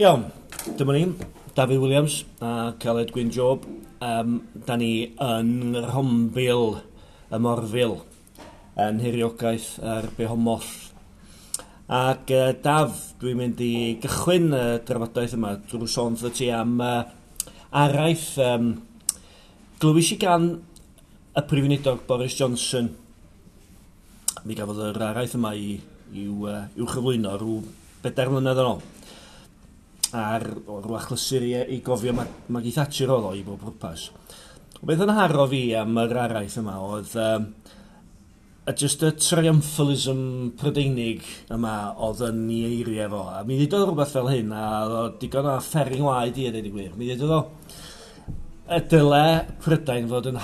Iawn, dyma ni, Dafydd Williams a Aled Gwyn Job. Da ni yn Rhombil, y Morfil, yn hiriogaeth yr Behomoth. Ac Daf, dwi'n mynd i gychwyn y drafodaeth yma drwy sôn wrtho ti am araith glywis i gan y Prif Weinidog Boris Johnson. Mi gafodd yr araith yma i'w chyflwyno rhyw 4 mlynedd yn ôl. Ar rhyw achlysur i gofio Maggie Thatcher oedd o i bob pwrpas. Beth yn haro fi am yr araith yma oedd just y triumphalism Prydeinig yma oedd yn ei eiriau fo. A mi ddudodd rhywbeth fel hyn, a oedd o digon o fferin ngwaed i a dweud y gwir. Mi ddudodd o y dyle Prydain fod yn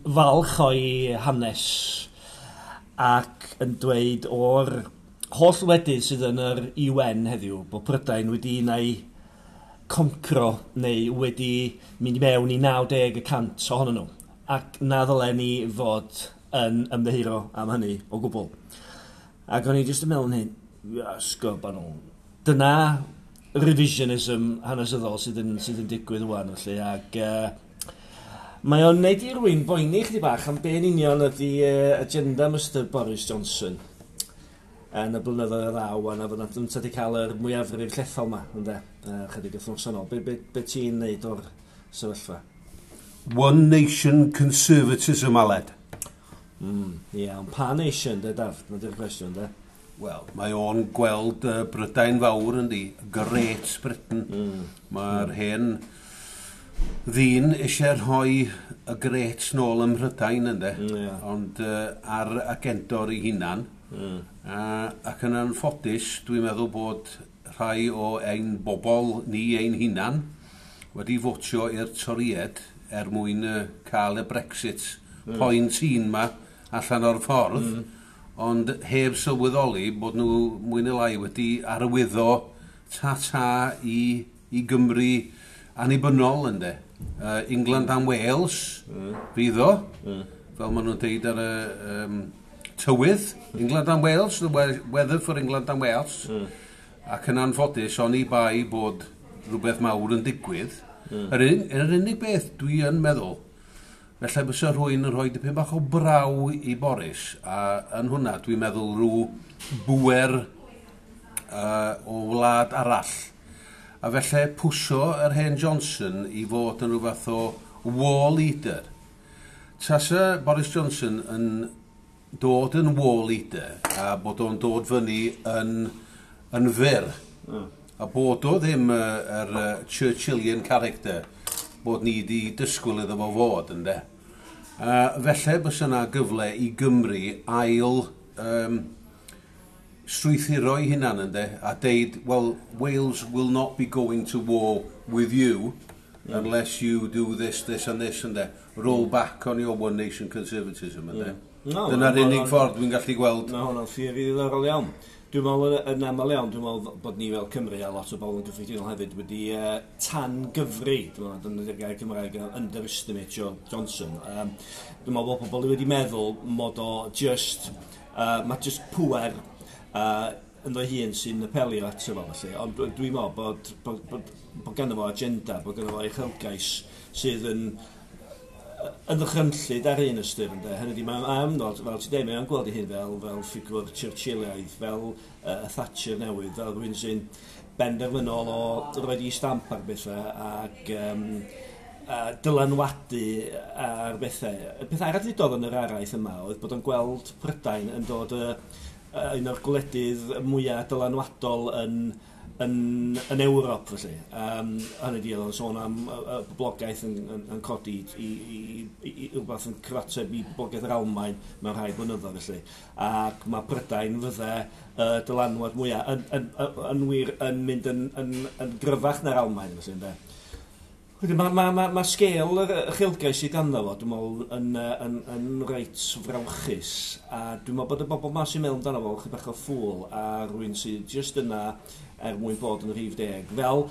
falch o'i hanes ac yn dweud o'r holl wledydd sydd yn yr UN heddiw bod Prydain wedi unai concro neu wedi mynd i mewn i 90% ohonyn nhw, ac na ddylen ni fod yn ymddiheuro am hynny o gwbl. Ac o'n i jyst yn meddwl yn hyn, sgob nhw. Dyna revisionism hanesyddol sydd yn digwydd ŵan felly, ac mae o'n neud i rywun boeni chydig bach am be yn union ydy agenda Mr Boris Johnson yn y blynyddoedd y ddaw, a na fod yn wedi cael yr mwyafrif llethol yma, ynde, chydig wythnos yn ôl. Be ti'n neud o'r sefyllfa? One Nation Conservatism, Aled. Ie, ond pa nation, de, Daf? Na di'r cwestiwn, de? Wel, mae o'n gweld Brydain fawr, yndi, Great Britain. Mae'r hen ddyn eisiau rhoi y Great nôl ym Mhrydain, ynde? Ond ar agendor ei hunan. Ac yn anffodus, dwi'n meddwl bod rhai o ein bobl ni ein hunan wedi fotio i'r Torïed er mwyn cael y Brexit point un ma allan o'r ffordd, ond heb sylweddoli bod nhw mwy neu lai wedi arwyddo ta-ta i Gymru annibynnol, ynde. England and Wales, fydd o, fel maen nhw'n deud ar y tywydd, England and Wales, the weather for England and Wales, ac yn anffodus, oni bai bod rhywbeth mawr yn digwydd. Yr unig beth dwi yn meddwl, felly bysa rhywun yn rhoi dipyn bach o braw i Boris, a yn hwnna dwi'n meddwl rhyw bwer o wlad arall. A felly pwsio yr hen Johnson i fod yn rhyw fath o war leader. Tasa Boris Johnson yn dod yn war leader a bod o'n dod fyny yn fyr. A bod o ddim yr Churchillian character bod ni wedi disgwyl iddo fo fod, ynde. Felly bysa yna gyfle i Gymru ail strwythuro ei hunan, ynde, a deud, well, Wales will not be going to war with you unless you do this, this and this, ynde. Roll back on your One Nation Conservatism, ynde. No, dyna'r unig ffordd dwi'n gallu gweld. Mae hwnna'n theori ddiddorol iawn. Dwi'n meddwl yn aml iawn, dwi'n meddwl bod ni fel Cymru a lot o bobl yn gyffredinol hefyd wedi tan gyfri, dwi'n meddwl, dyna'r gair Cymraeg, underestimate Johnson. Dwi'n meddwl bod pobl wedi meddwl mod o just, mae just pŵer ynddo hun sy'n apelio ato fo, felly. Ond dwi'n meddwl bod ganddo fo agenda, bod ganddo fo uchelgais sydd yn ddychrynllyd ar un ystyr, ynde. Hynny ydi, mae'n amnod, fel ti'n deud, mae'n gweld ei hun fel ffigwr Churchillaidd, fel y Thatcher newydd, fel rhywun sy'n benderfynol o roed i stamp ar bethau ac dylanwadu ar bethau. Y peth arall ddudodd yn yr araith yma oedd bod o'n gweld Prydain yn dod un o'r gwledydd mwyaf dylanwadol yn Ewrop, felly. Hynny ydi, oedd o'n sôn am y boblogaeth yn codi i rhywbeth yn cyfateb i boblogaeth yr Almaen mewn rhai blynyddoedd, felly. Ac mae Prydain fydde dylanwad mwyaf yn wir yn mynd yn gryfach na'r Almaen, felly, ynde. Wedyn mae sgêl yr uchelgais sydd ganddo fo, dwi'n meddwl, yn reit frawychus. A dwi'n meddwl bod y bobl ma sy'n meddwl amdano fo, chydig bach o ffŵl, a rhywun sydd jyst yna er mwyn bod yn rhif 10. Fel,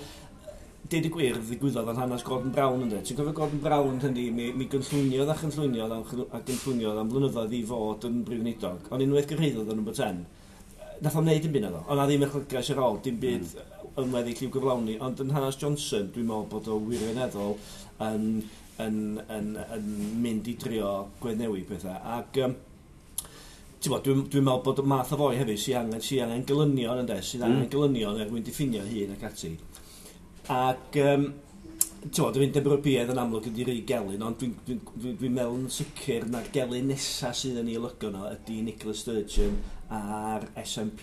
deud y gwir, ddigwyddodd yn hanes Gordon Brown, ynde? Ti'n cofio Gordon Brown hynny, mi gynllwyniodd a chynllwyniodd a gynllwyniodd am blynyddoedd i fod yn brif weinidog. Ond unwaith gyrhaeddodd yn number 10, nath o'n neud dim byd naddo. Ond na ddim uchelgais ar ôl, dim byd. yn weddill i'w gyflawni, ond yn hanes Johnson, dwi'n meddwl bod o wirioneddol yn mynd i drio gweddnewid pethau. Ac dwi'n meddwl bod y math o foi hefyd sy'n angen gelynion, ynde, sydd angen gelynion er mwyn diffinio hun ac ati. Ac ti'n Undeb Ewropeaidd yn amlwg ydi rei gelyn, ond dwi meddwl yn sicr na'r gelyn nesaf sydd yn ei olygu nhw ydy Nicola Sturgeon a'r SNP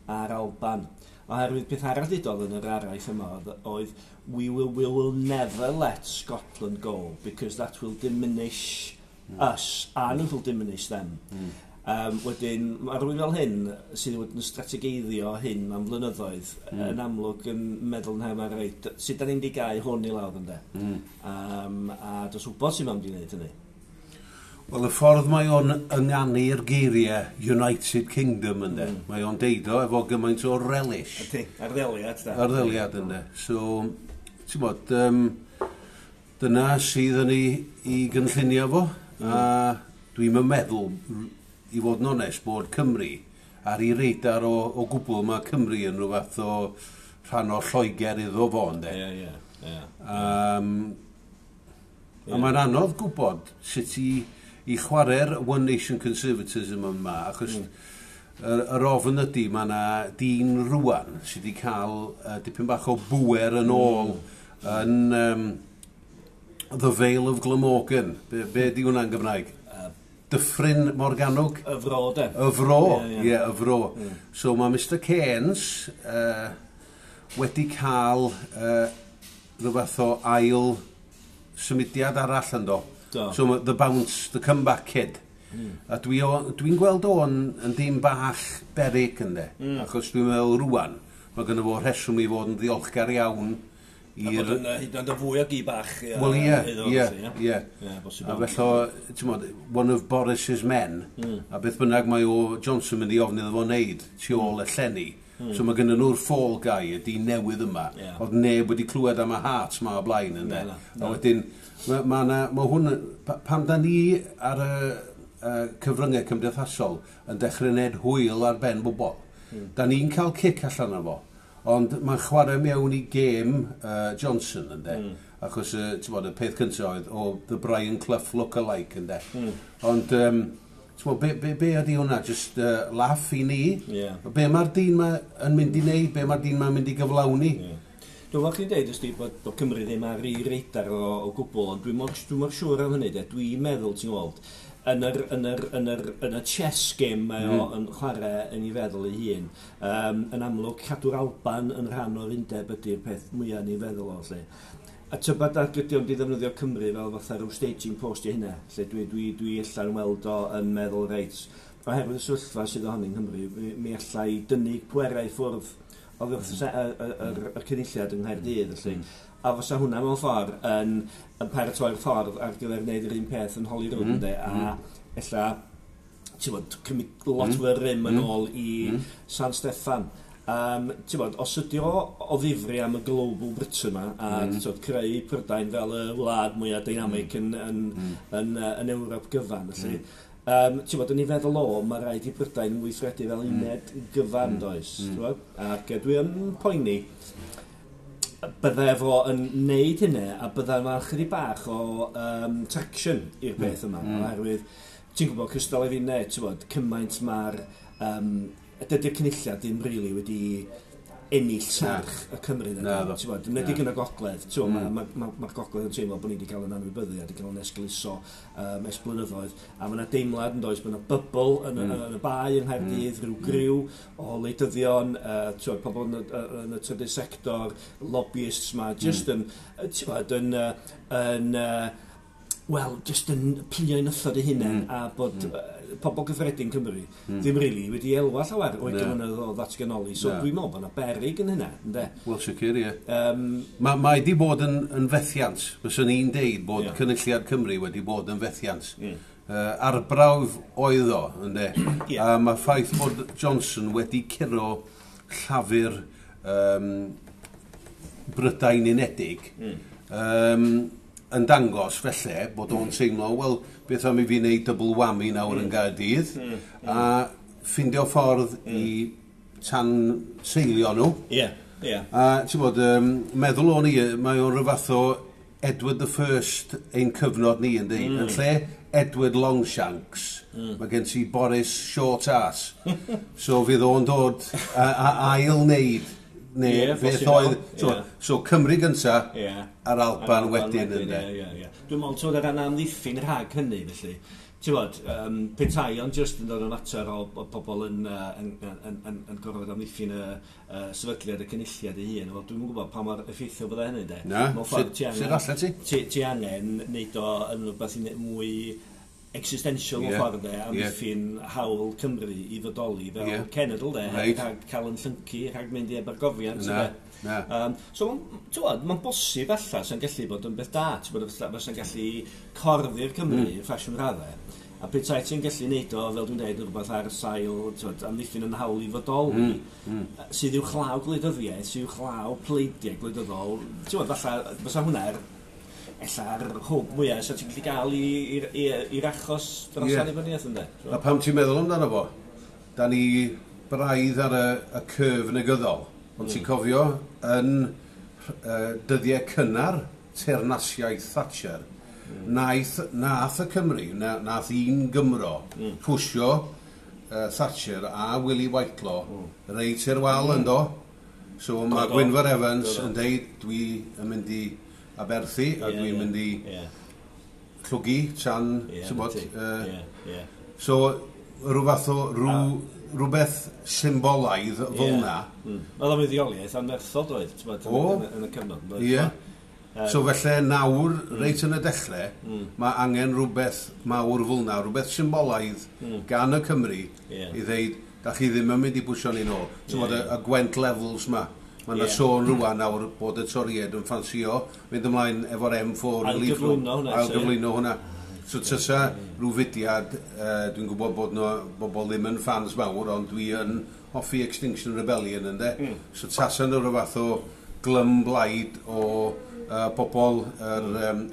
a'r Alban. Oherwydd peth arall ddudodd yn yr araith yma oedd we will never let Scotland go because that will diminish us and it will diminish them. Wedyn, mae rhywun fel hyn sydd wedi yn strategeiddio hyn am flynyddoedd yn amlwg yn meddwl yn hefyd, reit, sut da ni'n di gau hwn i lawr, ynde? A dos wybod sy'n mam di wneud hynny. Wel, y ffordd mae o'n ynganu'r geiriau United Kingdom, ynde. Mae o'n deud o efo gymaint o relish. Ydy, arddeliad, da. Arddeliad, ynde. So, ti'n bod, dyna sydd yn ei gynllunio fo. A dwi'n meddwl, i fod yn onest, bod Cymru ar ei radar o gwbl. Mae Cymru yn rhyw fath o rhan o Lloegr iddo fo, ynde. Ie, ie, ie. A mae'n anodd gwybod sut i chwarae'r One Nation Conservatism yma, achos yr ofn ydy mae yna dyn rwan sydd wedi cael dipyn bach o bwer yn ôl yn The Vale of Glamorgan. Be di hwnna'n Gymraeg? Dyffryn Morgannwg? Y fro, de. Y fro, ie, yeah, y fro. So mae Mr Keynes wedi cael rhyw fath o ail symudiad arall ynddo. Do. So mae the bounce, the comeback kid. A dwi gweld o'n yn dim bach berig, ynde. Achos dwi'n meddwl rwan, mae gynno fo rheswm i fod yn ddiolchgar iawn A bod yn hyd yn oed yn fwy o gi bach. Wel ie, iddo ie, felly, ie. Ie, bosib. A felly, ti'n modd, one of Boris's men, a beth bynnag mae o Johnson mynd i ofyn iddo fo wneud tu ôl y llenni. So mae gynnu nhw'r fall guy, y dyn newydd yma. Oedd neb wedi clywed am y Hearts ma o blaen, ynde. Na, na, A wedyn, ma hwn, pam da ni ar y cyfryngau cymdeithasol yn dechrau wneud hwyl ar ben bobl, da ni'n cael cic allan o fo. Ond mae'n chwarae mewn i gêm Johnson, ynde. Achos, ti'n bod, y peth cyntaf oedd, o, the Brian Clough look-alike, ynde. Ond, ti'n bod, be ydy hwnna? Just laugh i ni? Be mae'r dyn ma yn mynd i wneud? Be mae'r dyn ma'n mynd i gyflawni? Ie. Dwi'n meddwl chi'n deud, ysdi, bod Cymru ddim ar ei radar o gwbl, ond dwi mor siŵr am hynny, de. Dwi'n meddwl, ti'n gweld, yn y chess game mae o yn chwarae yn ei feddwl ei hun. Yn amlwg, cadw'r Alban yn rhan o'r undeb ydy'r peth mwyaf yn ei feddwl o, lle. A tybed ag ydy o'n di ddefnyddio Cymru fel fatha rhyw staging post i hynna, lle dwi allan weld o yn meddwl, reit, oherwydd y sefyllfa sydd ohoni yng Nghymru, mi alla i dynnu pwerau i ffwrdd oddi wrth y cynulliad yng Nghaerdydd, felly. A fysa hwnna mewn ffordd yn paratoi'r ffordd ar gyfer wneud yr un peth yn Holyrood, ynde, a ella, ti'n bod, cymryd lot fwy o rym yn ôl i San Steffan. Ti'n bod, os ydy o ddifri am y Global Britain yma, a mm. creu Prydain fel y wlad mwyaf dynamic yn Ewrop gyfan, felly, ti'n bod, yn ei feddwl o, mae rhaid i Brydain weithredu fel uned gyfan, does? Ti'n bod? Ac dwi yn poeni bydde fo yn neud hynny a bydde yma chydig bach o traction i'r peth yma, oherwydd ti'n gwybod cystal i fi ne, ti'n bod, cymaint mae'r dydy'r cynulliad ddim rili wedi ennill serch y Cymru Na, ddo. Ti'n bod, yn yn y gogledd, ti'n bod, ma gogledd yn teimlo bod ni wedi cael yn anwybyddu a wedi cael yn esgeuluso ers blynyddoedd, a mae yna deimlad yn does, mae yna bubble yn y bae yng Nghaerdydd, rhyw griw o wleidyddion, ti'n bod, pobl yn y trydydd sector, lobbyists ma, just yn, ti'n bod, yn, wel, just yn plio i nythod eu hunain a bod pobl gyffredin Cymru ddim rili wedi elwa llawer o'i Na. gyfynedd o ddatganoli. So Na. dwi'n meddwl bod yna berig yn hynna, ynde? Wel, sicr, ie. Mae di bod yn fethiant. Fyswn i'n deud bod Cynulliad Cymru wedi bod yn fethiant. Arbrawf oedd o, ynde? A mae ffaith bod Johnson wedi curo Llafur Brydain Unedig yn dangos felly bod o'n teimlo, wel, beth am i fi wneud double whammy nawr yn Gaerdydd, a ffindio ffordd i tan seilio nhw. A ti'n bod, meddwl o'n i, mae o'n rhyw fath o Edward the First ein cyfnod ni, yndi? Yn lle Edward Longshanks, mae gen ti Boris Short Ass. So fydd o'n dod a ail wneud, neu beth posib oedd. iawn, So, so Cymru gynta, a'r Alban wedyn, ynddo. Ie. Dwi'n meddwl, ti'n bod, ar ran amddiffyn rhag hynny, felly. Ti'n bod, petai ond just yn dod yn fater o pobl yn gorfod amddiffyn y sefydliad y cynulliad ei hun. Wel, dwi'm yn gwybod pa mor effeithiol fydde hynny, de. Na, Mewn ffordd, ti sut allet ti? Ti angen neud o yn rhywbeth i mwy existential mewn ffordd, de, amddiffyn hawl Cymru i fodoli fel cenedl, de, rhag cael yn llyncu, rhag mynd i ebargofiant, Na, de. na. So, ti'n gwbod, mae'n bosib ella sy'n gallu bod yn beth da, ti'n gwbod, fysa'n gallu corddi'r Cymru ffasiwn raddau. A petai ti'n gallu neud o, fel dwi'n dweud, rhywbeth ar sail, ti'n gwbod, amddiffyn yn hawl i fodoli, sydd uwchlaw gwleidyddiaeth, sydd uwchlaw pleidiau gwleidyddol, ti'n gwbod, falle, fysa hwnna'r ella'r hwb mwyaf sy'n ti'n gallu gael i'r achos dros annibyniaeth, ynde? A pam ti'n meddwl amdano fo, da ni braidd ar y curve negyddol, ond ti'n cofio yn dyddiau cynnar teyrnasiaeth Thatcher, nath y Cymru, nath un Gymro, pwsio Thatcher a Willie Whitelaw reit i'r wal yndo. So mae Gwynfor Evans yn deud, dwi yn mynd i aberthu a dwi'n mynd i llwgu tan, ti'n bod, 'na ti. Ie, ie. So, rhyw fath o, rhywbeth symbolaidd fel na. Oedd o'n fuddioliaeth anferthol doedd, ti'n bod, yn y cyfnod. Doedd, Ie. So felly nawr, reit yn y dechrau, mae angen rhywbeth mawr fel na, rhywbeth symbolaidd gan y Cymru i ddeud, da chi ddim yn mynd i bwysio ni nôl. Ti'n bod, y Gwent Levels ma. Mae yna sôn rwan nawr bod y Toried yn ffansio mynd ymlaen efo'r M4 relief road. Ailgyflwyno hwnna, so, ie. Ailgyflwyno hwnna. So tysa rhyw fudiad, dwi'n gwybod bod no, bobl ddim yn fans mawr, ond dwi yn hoffi Extinction Rebellion, ynde? So tasa nhw rhyw fath o glymblaid o bobl yr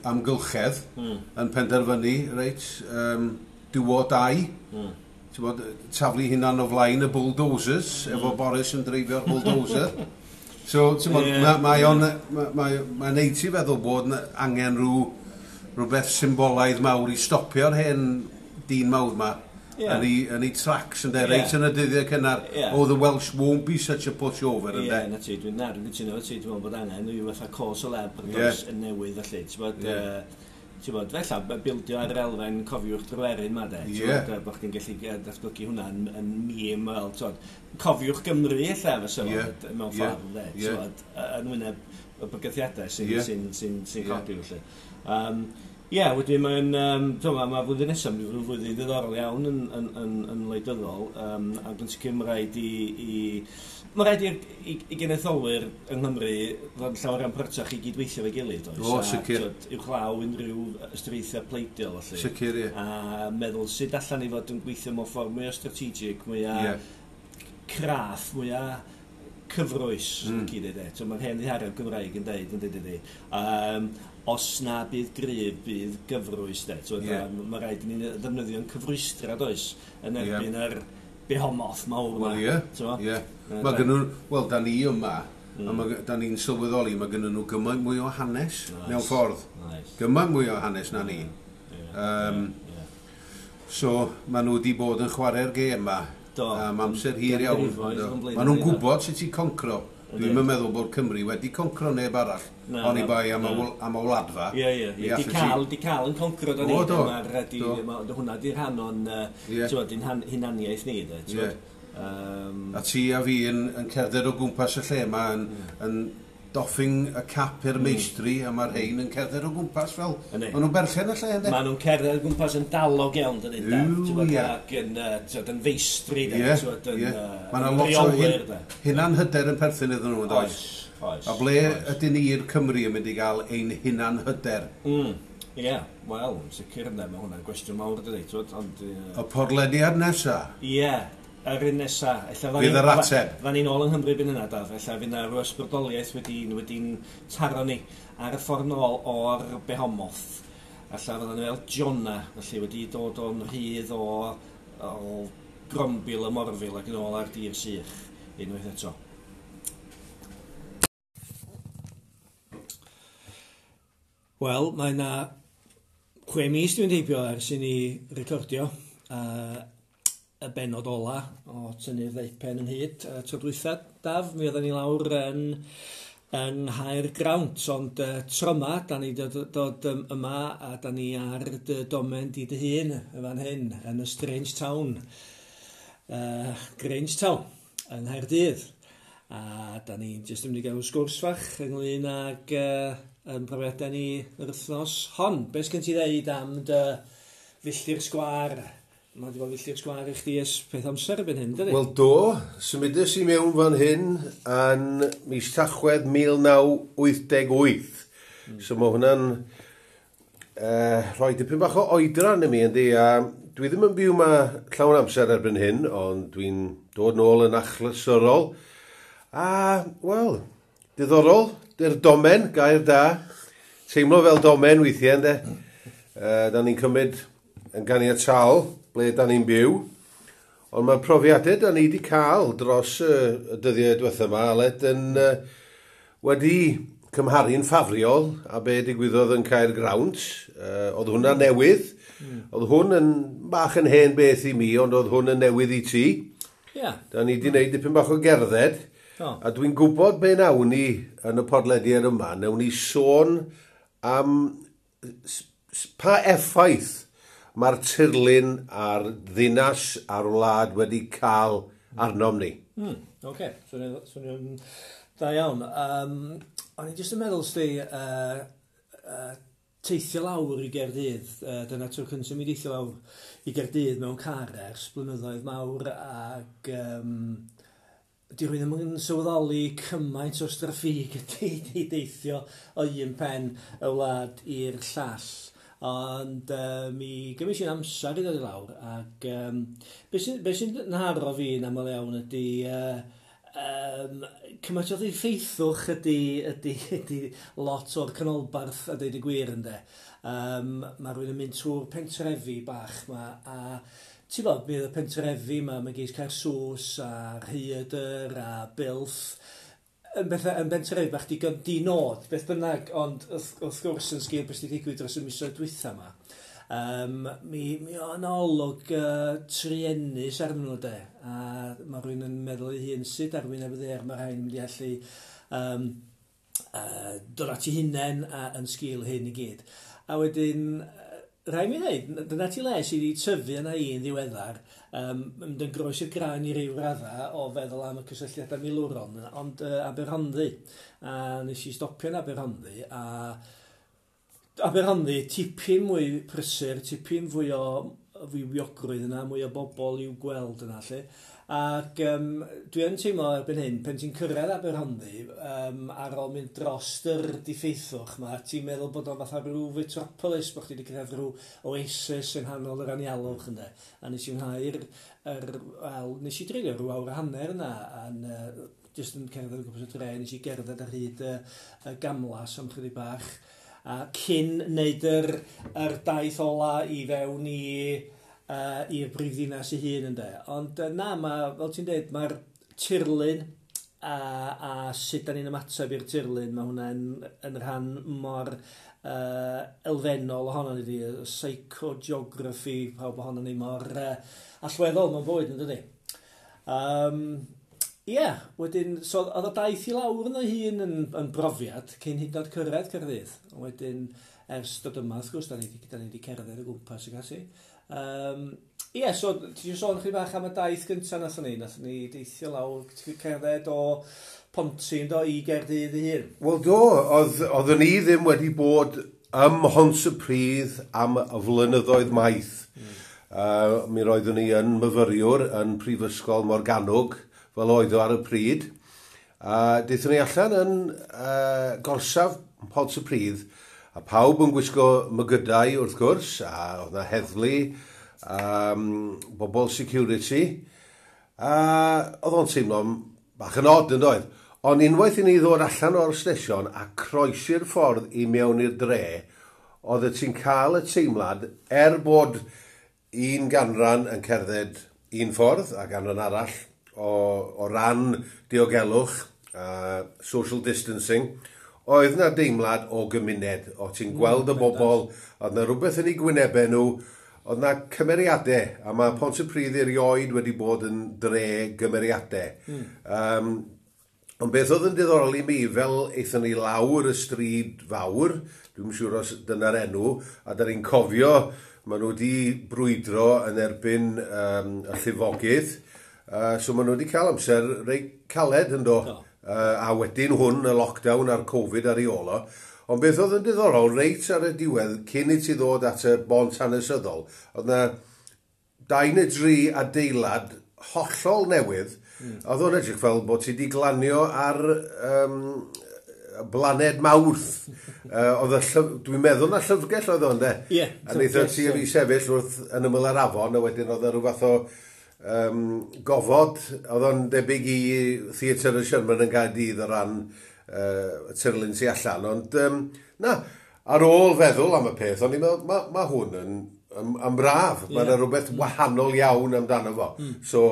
amgylchedd yn penderfynu, reit, do or die. Ti'n bod, taflu hunan o flaen y bulldozers, efo Boris yn dreifio'r bulldozer. So, ti'n bod, mae o'n, mae'n neud ti feddwl bod 'na angen rhywbeth symbolaidd mawr i stopio'r hen dyn mawr ma yn ei tracks, ynde, reit yn y dyddiau cynnar. Oh, the Welsh won't be such a pushover, ynde. Ie, na ti, dwi'n cytuno efo ti, dwi'n meddwl bod angen rhyw fatha cause célèbre does, yn newydd felly, ti'n bod, ti'n bod, fella, bildio ar yr elfen cofiwch Dryweryn ma, de, ti'n bod, bod chdi'n gallu datblygu hwnna yn meme, fel, ti'n bod, cofiwch Gymru, ella, fysa fo, mewn ffordd, de, ti'n bod, yn wyneb y bygythiadau sy'n codi, felly. Ie, wedyn mae'n, ti'n gwbod, mae flwyddyn nesaf yn mynd i fod yn flwyddyn ddiddorol iawn yn wleidyddol, ac yn sicr mae rhaid i genedlaetholwyr yng Nghymru fod yn llawer iawn prytach i gydweithio efo'i gilydd, oes? O, A, sicr. t'wod, uwchlaw unrhyw ystyriaethau pleidiol, felly. Sicr, ie. A meddwl sut allan ni fod yn gweithio mewn ffordd mwy o strategic, mwy o craff, mwy o cyfrwys, mm. dweud, e. So, mae'r hen ddihareb Gymraeg yn deud, yn dweud, ydy. Os na bydd gryf, bydd gyfrwys, de. So, mae rhaid i ni ddefnyddio'n cyfrwystra, does, yn erbyn yr behomoth mawr yma. Wel, ie. T'mo'? Ie. Yy, Mae gynnu, wel, da ni yma, a da ni'n sylweddoli, mae gynnu nhw gymaint mwy o hanes mewn ffordd. Gymaint mwy o hanes na ni. So, maen nhw wedi bod yn chwarae'r gêm yma am amser hir iawn. Ganrifoedd o'n blaenau Maen nhw'n ni, gwybod sut i concro. Dwi'n yn meddwl bod Cymru wedi concro neb arall. Na, Oni na, bai am y na. am y wladfa. Ie. Mi Di allet ti- cael, di cael yn concro da ni. O, do. Mae'r, hwnna di rhan o'n, ti'n gwbod, di'n hunaniaeth ni, de, ti'n gwbod. A ti a fi yn cerdded o gwmpas y lle yma yn doffing y cap i'r meistri a mae'r rhain yn cerdded o gwmpas fel... Yndi. Maen nhw'n berchen y lle, ynddi? Maen nhw'n cerdded o gwmpas yn dalog iawn, dydyn, de. Yw, Ti'n gwbod, ie. ac yn, ti'n gwbod, yn feistri, de. Ie, Ti'n gwbod, yn, Mae yna yn lot o reolwyr, de. hunanhyder yn perthyn iddyn nhw, yn does? Oes, oes. A ble ydyn ni'r Cymru yn mynd i gael ein hunanhyder? Ie, wel, yn sicr ynddo, mae hwnna'n gwestiwn mawr, dydy, ti'n gwbod, ond... Y podlediad nesa? Ie, yr un nesa. Ella Fydd yr ateb. Fyddan ni'n ôl yng Nghymru byn yna, Daf. Ella fydd yna rhyw ysbrydoliaeth wedi'n taro ni ar y ffordd nôl o'r Behomoth. Ella fyddan ni fel Jonah, felly wedi dod o'n rhydd o grombil y morfil ac yn ôl ar dir sych unwaith eto. Wel, mae yna 6 mis dwi'n heibio ers i ni recordio y bennod ola o Tynnu'r Ddeupen Ynghyd tro dwytha. Daf, mi oedden ni lawr yn Nghaergrawnt, ond tro yma, da ni dod yma a da ni ar dy domen di dy hun yn fan hyn, yn y Strange Town, Grange Town, yng Nghaerdydd. A da ni jyst yn mynd i gael sgwrs fach ynglyn ag yn profiadau ni yr wythnos hon. Be sgen ti ddeud am dy filltir sgwâr? Mae wedi bod filltir sgwâr i chdi ers peth amser erbyn hyn, dydy? Wel do, symudes i mewn fan hyn yn mis Tachwedd 1988. So mae hwnna'n rhoi dipyn bach o oedran i mi, yndi. A dwi ddim yn byw yma llawn amser erbyn hyn, ond dwi'n dod nôl yn achlysurol. A, wel, diddorol, dy'r domen, gair da. Teimlo fel domen weithiau, yndê. Da ni'n cymryd yn ganiataol ble da ni'n byw. Ond mae'r profiadau da ni wedi cael dros y dyddiau diwetha yma, Aled, yn wedi cymharu'n ffafriol a be digwyddodd yn Caergrawnt. Oedd hwnna newydd. Oedd hwn yn bach yn hen beth i mi, ond oedd hwn yn newydd i ti. Da ni wedi gwneud dipyn bach o gerdded. A dwi'n gwybod be nawn ni yn y podlediad yma. Nawn ni sôn am pa effaith mae'r tirlun a'r ddinas a'r wlad wedi cael arnom ni. Oce, swnio'n da iawn. O'n i jyst yn meddwl, sti, teithio lawr i Gaerdydd, dyna tro cyntaf mi deithio lawr i Gaerdydd mewn car ers blynyddoedd mawr, ac di rhywun ddim yn sylweddoli cymaint o straffig ydy i deithio o un pen y wlad i'r llall. Ond mi gymryd i'n amser i ddod i lawr, ac be sy'n nharo fi yn aml iawn ydy cymaint o ddiffeithwch ydy lot o'r canolbarth a deud y gwir, ynde. Mae rhywun yn mynd trwy'r pentrefi bach ma, a ti'n bod, mi oedd y pentrefi ma, mae geis Caersws a Rhaeadr a Builth, yn bethau, yn bentrefi bach digon di-nod, beth bynnag, ond wrth gwrs yn sgil beth sydd wedi digwydd dros y misoedd dwytha yma, mi o'n olwg truenus arnyn nhw de, a mae rhywun yn meddwl ei hun sut ar wyneb y ddaear mae rhain yn mynd i allu dod at ei hunain yn sgil hyn i gyd. A wedyn, rhaid mi ddeud, dyna ti le sydd wedi tyfu yna i'n ddiweddar, mynd yn groes i'r graen i ryw radda o feddwl am y cysylltiadau milwrol, ond Aberhonddu. A nes i stopio yn Aberhonddu, a Aberhonddu tipyn mwy prysur, tipyn fwy o fywiogrwydd yna, mwy o bobl i'w gweld yna, lle. Ac dwi yn teimlo erbyn hyn, pen ti'n cyrraedd Aberhonddu, ar ôl mynd dros yr diffeithwch ma, ti'n meddwl bod o'n fatha rhyw metropolis, bod chdi wedi cyrraedd rhyw oasis yng nghanol yr anialwch, ynde. A nes i mwynhau'r, nes i dreulio rhyw awr a hanner yna, a'n jyst yn cerdded o gwmpas y dre, nes i gerdded ar hyd y gamlas am chydig bach, a cyn wneud yr daith ola i fewn i'r brifddinas ei hun, ynde. Ond na, ma, fel ti'n dweud, mae'r tirlun a sut da ni'n ymateb i'r tirlun, mae hwnna'n yn rhan mor elfennol ohono ni, y psychogeography, pawb ohono ni mor allweddol mewn bywyd, yn dydi? Ie, wedyn, so oedd y daith i lawr yno hun yn brofiad cyn hyd yn oed cyrraedd Caerdydd. Wedyn, ers dod yma, wrth gwrs, da ni wedi cerdded o gwmpas ag ati. Ie, so ti eisiau sôn chydig bach am y daith gyntaf nathon ni? Nathon ni deithio lawr, cerdded o Ponty do i Gaerdydd ei hun. Wel do, oeddwn ni ddim wedi bod ym Mhontypridd am flynyddoedd maith. Mi roeddwn ni yn myfyriwr yn Prifysgol Morgannwg, fel oedd o ar y pryd. A daethon ni allan yn gorsaf Pontypridd, a pawb yn gwisgo mygydau wrth gwrs, a oedd 'na heddlu, bobl security, a oedd o'n teimlo bach yn odd, yn doedd? Ond unwaith i ni ddod allan o'r stesion a croesi'r ffordd i mewn i'r dre, oedd ti'n cael y teimlad, er bod un ganran yn cerdded un ffordd a ganran arall o ran diogelwch, social distancing, Oedd na deimlad o gymuned, o ti'n gweld y bobl, oedd na rhywbeth yn eu gwynebau nhw, oedd na cymeriadau, a mae Pontypridd erioed wedi bod yn dre gymeriadau. Ond beth oedd yn diddorol i mi, fel aethon ni lawr y stryd fawr, dwi'n siŵr os dyna'r enw, a da ni'n cofio, maen nhw wedi brwydro yn erbyn y llifogydd, so maen nhw wedi cael amser reit caled yn do. A wedyn hwn, y lockdown a'r Covid ar ei ôl o. Ond beth oedd yn diddorol, reit ar y diwedd, cyn i ti ddod at y bont hanesyddol, oedd na 2 neu 3 adeilad hollol newydd. Oedd o'n edrych fel bod ti wedi glanio ar blaned Mawrth. Oedd y dwi'n meddwl na llyfrgell oedd o'n de. Ie. A wnaethon ti a fi sefyll wrth yn ymyl yr afon, a wedyn oedd e rhyw fath o gofod, oedd o'n debyg i Theatr y Sherman yn Gaerdydd o ran y tirlun tu allan. Ond na, ar ôl feddwl am y peth, o'n i'n meddwl, ma hwn yn braf. Mae yna rhywbeth wahanol iawn amdano fo. So,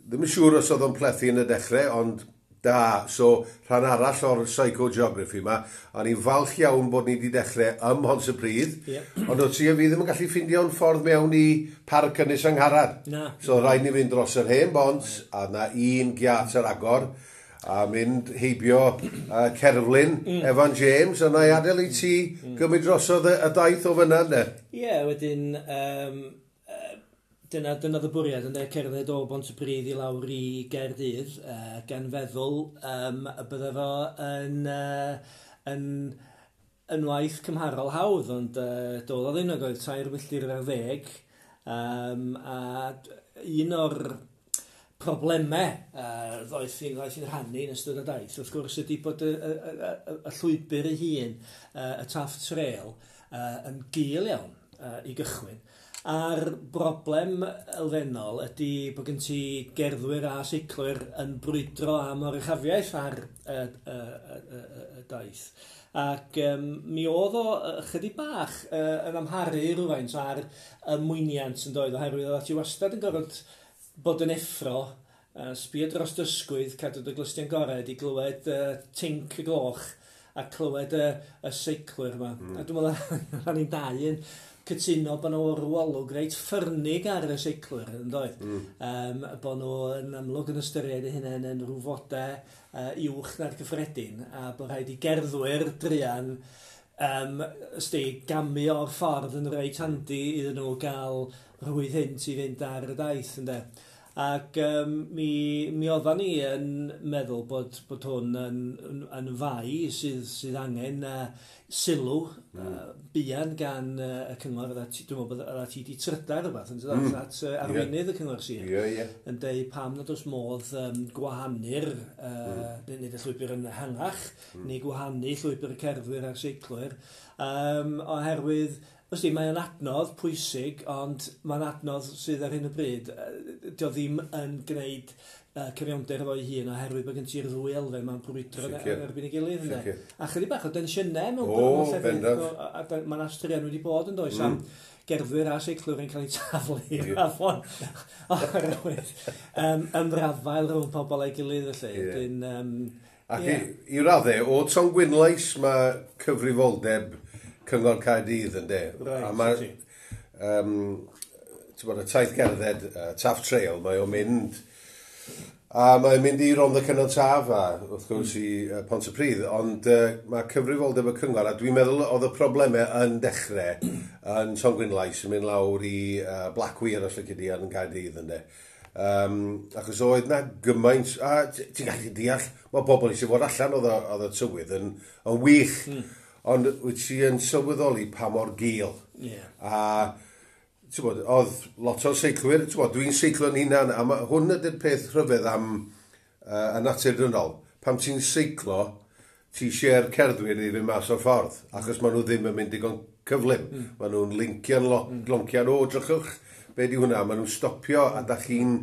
ddim yn siŵr os oedd o'n plethu yn y dechrau, ond da. So, rhan arall o'r psychogeography yma, a ni'n falch iawn bod ni wedi dechrau ym Mhontypridd, ond o ti a fi ddim yn gallu ffeindio'n ffordd mewn i Parc Ynys Angharad. Na. So, rhaid ni fynd dros yr hen bont, a na un giat ar agor, a mynd heibio cerflun Evan James, a na i adael i ti gymryd drosodd y daith o fyna, ne? Ie, wedyn, dyna y bwriad, ynde, cerdded o Bontypridd i lawr i Gaerdydd, gan feddwl y bydde fo yn waith cymharol hawdd, ond doedd o ddim, oedd 3 milltir ar 10, a un o'r problemau ddoeth i'n rhannu yn ystod y daith, wrth gwrs, ydy bod y llwybr ei hun, y Taff Trail, yn gul iawn i gychwyn. A'r broblem elfennol ydy bod gen ti gerddwyr a seiclwyr yn brwydro am oruchafiaeth ar y daith. Ac mi oedd o ychydig bach yn amharu rhywfaint ar y mwyniant yn doedd, oherwydd oedd ti wastad yn gorfod bod yn effro, sbio dros dysgwydd, cadw dy glustiau'n gored i glywed tinc y gloch a clywed y seiclwyr yma. A dwi'n meddwl rhan i'n dau yn cytuno bod nhw rhyw olwg reit ffyrnig ar y seiclwyr, yn doedd? Bod nhw yn amlwg yn ystyried eu hunain yn rhyw fodau uwch na'r cyffredin, a bod rhaid i gerddwyr druan gamu o'r ffordd yn reit handi iddyn nhw gael rhwydd hynt i fynd ar y daith, ynde? Ac mi oeddan ni yn meddwl bod hwn yn fai sydd angen sylw buan gan y cyngor. Dwi'n meddwl bod ti wedi trydar rhywbeth yn dod at arweinydd y cyngor sir. Yn deud pam nad oes modd gwahanu'r nid y llwybr yn ehangach, neu gwahanu llwybr y cerddwyr a'r seiclwyr, oherwydd Wsti, mae'n adnodd pwysig, ond mae'n adnodd sydd ar hyn o bryd, dio ddim yn gwneud cyfiawnder efo'i hun, oherwydd bod gen ti'r ddwy elfen mae'n brwydro yn erbyn ei gilydd. Ynde? A chydig bach o densiynau mewn llefydd, mae'n astraean wedi bod yn does, am gerddwyr a seiclwyr yn cael eu taflu i'r afon oherwydd ymrafael rhwng pobl a'i gilydd felly. Ac i raddau, o Tongwynlais mae cyfrifoldeb Cyngor Caerdydd yn de. Right, a mae, ti'n bod, y taith gerdded, Taff Trail, mae o'n mynd, a mae'n mynd i Rhondda Cynon Taf a wrth gwrs i Pontypridd, ond mae cyfrifoldeb y cyngor, a dwi'n meddwl oedd y problemau yn dechrau yn Tongwynlais yn mynd lawr i Blackweir os lici di yn Caerdydd yn de. Achos oedd na gymaint, a ti'n gallu deall, mae pobl eisiau fod allan, oedd y tywydd yn wych. Ond wyt ti yn sylweddoli pa mor gul. A ti'n bod, oedd lot o seiclwyr, ti'n bod, dwi'n seiclo'n hunan, a hwn ydy'r peth rhyfedd am y natur dynol. Pam ti'n seiclo, ti eisiau'r cerddwyr i fynd mas o'r ffordd, achos maen nhw ddim yn mynd digon cyflym. Maen nhw'n lincio'n loncian, o, drychwch, be di hwnna, maen nhw'n stopio, a da chi'n...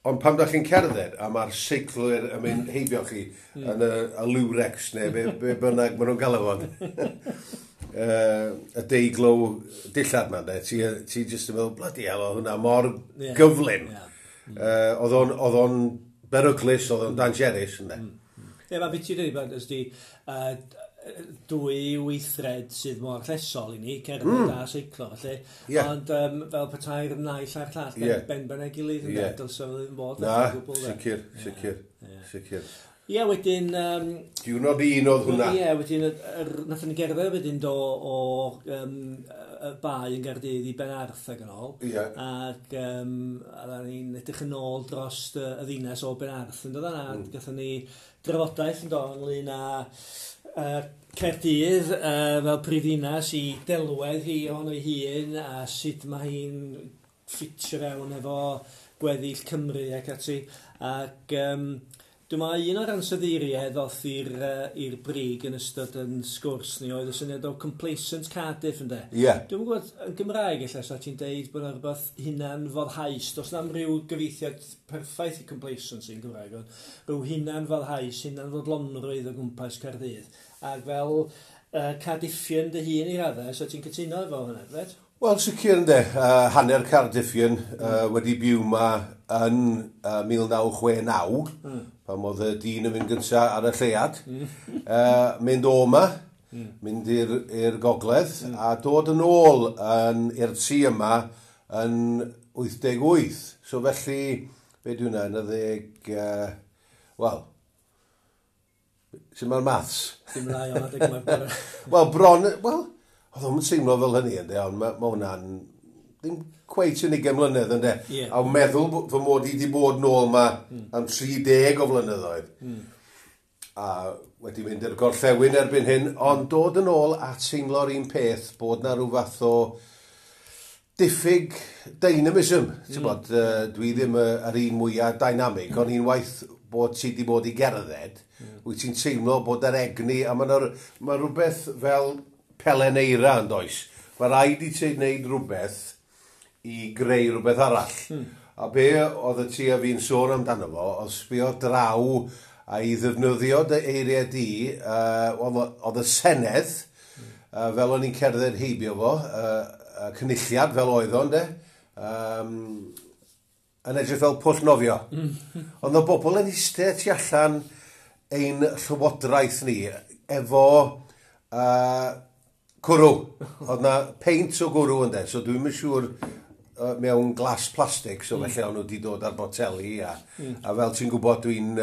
Ond pam da chi'n cerdded, a mae'r seiclwyr yn mynd heibio chi yn y Lurex neu be bynnag maen nhw'n galw fo. Y deiglow dillad ma, de. Ti jyst yn meddwl, bloody hell, oedd hwnna mor gyflym. Oedd o'n beryglus, oedd o'n dangerous, ynde. Ie, mae beth ti'n dweud, ysdi, dwy weithred sydd mor llesol i ni, cerdded a seiclo, felly. Ond fel petai'r naill a'r llall, ben ben ei gilydd, yn dylse fo ddim bod. Na, sicr, sicr, sicr. Ie, wedyn... Diwrnod un oedd hwnna. Ie, wedyn, nathon ni gerdded wedyn do o y bae yn Gaerdydd i Benarth ac yn ôl. Ac a ni'n edrych yn ôl dros y ddinas o Benarth yn dod yna. Gathon ni drafodaeth yn do ynglyn â Caerdydd fel prifddinas i delwedd hi ohono ei hun a sut mae hi'n ffitio fewn efo gweddill Cymru ac ati. Ac dwi'n meddwl un o'r ansoddeiriau ddoth i'r brig yn ystod yn sgwrs ni oedd y syniad o complacent Cardiff, ynde? Ie. Yeah. Dwi'n gwybod, yn Gymraeg ella, sa ti'n deud bod yna rhywbeth hunan-foddhaus. Does na'm rhyw gyfieithiad perffaith i complacency yn Gymraeg, ond rhyw hunan-foddhaus, hunan-fodlonrwydd o gwmpas Caerdydd. Ac fel Cardiffian dy hun i raddau, so ti'n cytuno efo hwnna, dweud? Wel, sicr ynde, hanner Cardiffian wedi byw ma yn 1969, pan oedd y dyn yn mynd gyntaf ar y lleuad, mynd o ma, mynd i'r gogledd, a dod yn ôl i'r tŷ yma yn 88. So felly, be di hwnna, yn y ddeg... Wel, sy'n mae'r maths? Dim yn iawn adeg yma. Wel, bron... Wel, oedd o'n teimlo fel hynny, ynddo, ond mae ma hwnna'n ddim cweit yn 20 mlynedd, ynddo. Yeah. A meddwl fy mod i wedi bod nôl ma am 30 o flynyddoedd. A wedi mynd i'r gorllewin erbyn hyn, ond dod yn ôl a teimlo'r un peth bod na rhyw fath o diffyg dynamism. Ti'n bod, dwi ddim yr un mwyaf dynamig, ond unwaith bod ti wedi bod i gerdded, wyt ti'n teimlo bod yr egni, a mae ma rhywbeth fel pelen eira yn does. Mae rhaid i ti wneud rhywbeth i greu rhywbeth arall. A be oedd y ti a fi'n sôn amdano fo, oedd sbio draw a i ddefnyddio dy eiriau di, oedd y Senedd, fel o'n i'n cerdded heibio fo, cynulliad fel oedd o, ynde, yn edrych fel pwll nofio. Ond oedd bobl yn eistedd tu allan ein llywodraeth ni efo cwrw. Oedd na peint o gwrw ynde, so dwi'm yn siŵr mewn glas plastig, so felly o'n nhw wedi dod ar boteli a fel ti'n gwybod dwi'n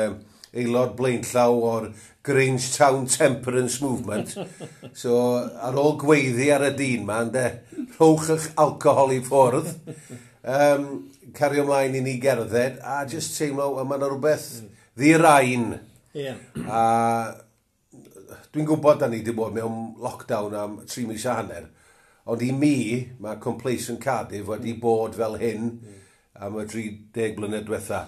aelod blaenllaw o'r Grangetown Temperance Movement. So ar ôl gweiddi ar y dyn ma, ynde, rhowch eich alcohol i ffwrdd, cario ymlaen i ni gerdded, a just teimlo, wel, mae yna rhywbeth ddi-raen. Yeah. A dwi'n gwybod da ni wedi bod mewn lockdown am 3 mis a hanner, ond i mi, mae Complacent Cardiff wedi bod fel hyn am y 30 blynedd diwetha.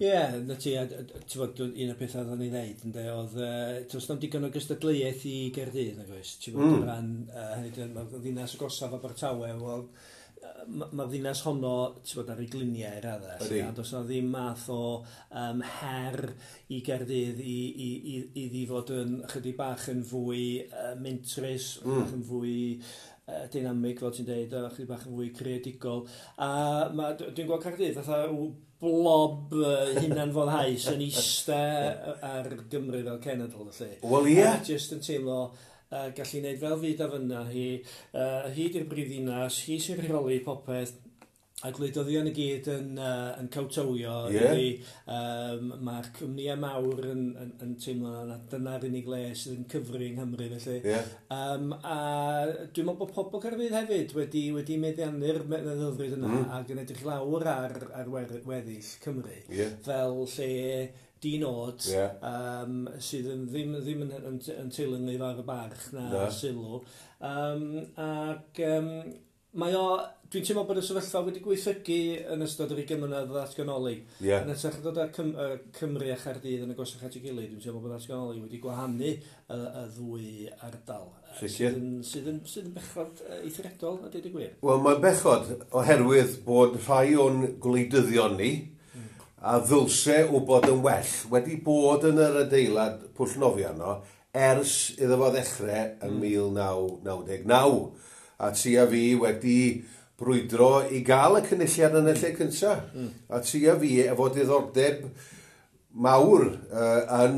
Ie, na ti, a ti'n bod, un o'r pethau oedden ni ddeud, ynde, oedd, does na'm digon o gystadleuaeth i Gaerdydd, nag oes? Ti'n bod, o ran, hynny yw, mae'r ddinas agosaf Abertawe, wel, mae'r ddinas honno, ti'n bod, ar ei gliniau i raddau, a does na ddim math o her i Gaerdydd i fod yn chydig bach yn fwy mentrus, bach yn fwy dynamig, fel ti'n deud, a chydig bach yn fwy creadigol. A dwi'n gweld Caerdydd fatha blob hunan-foddhaus yn iste ar Gymru fel cenedl, felly. Wel, ie. A jyst yn teimlo gallu gwneud fel fyd a fyna hi, hi di'r brifddinas, hi sy'n rheoli popeth, a gwleidyddion i gyd yn cawtowio. Yeah. Mae'r cwmnïau mawr yn teimlo na dyna'r unig le sydd yn cyfri yng Nghymru, felly. Yeah. A dwi'n meddwl bod pobl Caerdydd hefyd wedi meddiannu'r meddylfryd yna ac yn edrych lawr ar weddill Cymru. Yeah. Fel lle di-nod, sydd yn ddim yn teilwng fawr y barch na sylw. Ac mae o, dwi'n teimlo bod y sefyllfa wedi gweithredu yn ystod yr 20 mlynedd o ddatganoli. Yeah. Yn hytrach na dod â Cymru a Chaerdydd yn agosach at ei gilydd, dwi'n teimlo bod ddatganoli wedi gwahanu y ddwy ardal. Sicr. Sydd yn bechod eithriadol, a deud y gwir. Wel, mae'n bechod oherwydd bod rhai o'n gwleidyddion ni, a ddylse wybod yn well, wedi bod yn yr adeilad pwll nofio yno ers iddo fo ddechrau yn 1999. A ti a fi wedi brwydro i gael y cynulliad yn y lle cyntaf. A ti a fi efo diddordeb mawr yn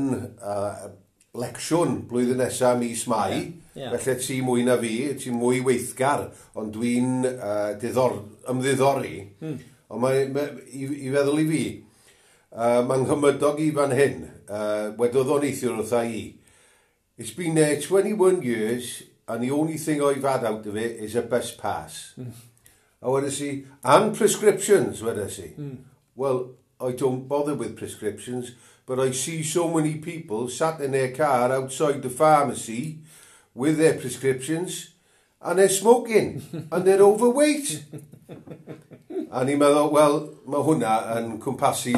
lecsiwn blwyddyn nesaf mis Mai. Yeah. Felly ti mwy na fi, ti mwy weithgar, ond dwi'n ymddiddori. Ond i feddwl i fi, mae'n nghymydog i fan hyn, wedodd o'n neithiwr wrtha i, "It's been there 21 years, and the only thing I've had out of it is a bus pass." A wedes i, "And prescriptions," wedes i. "Well, I don't bother with prescriptions, but I see so many people sat in their car outside the pharmacy with their prescriptions, and they're smoking, and they're overweight." A ni'n meddwl, wel, mae hwnna yn cwmpasu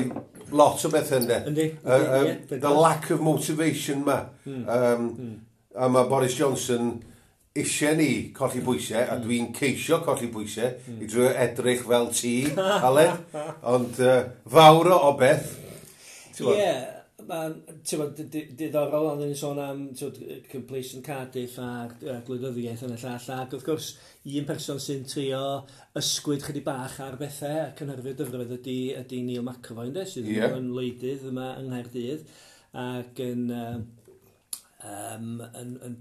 lot o bethau, ynddo. Yndi, ie, The lack of motivation ma. A mae Boris Johnson eisiau ni colli bwysau, a dwi'n ceisio colli bwysau, i drio edrych fel ti, Aled, ond fawr o obeth. Ie, yeah, mae'n diddorol, ond ni'n sôn am, t'wod, complacent Cardiff a'r gwleidyddiaeth yn y llall, ac wrth gwrs, un person sy'n trio ysgwyd chydig bach ar bethau a cynhyrfu'r dyfroedd ydy Neil McAvoy, ynddo, sydd yn wleidydd yma yng Nghaerdydd, ac yn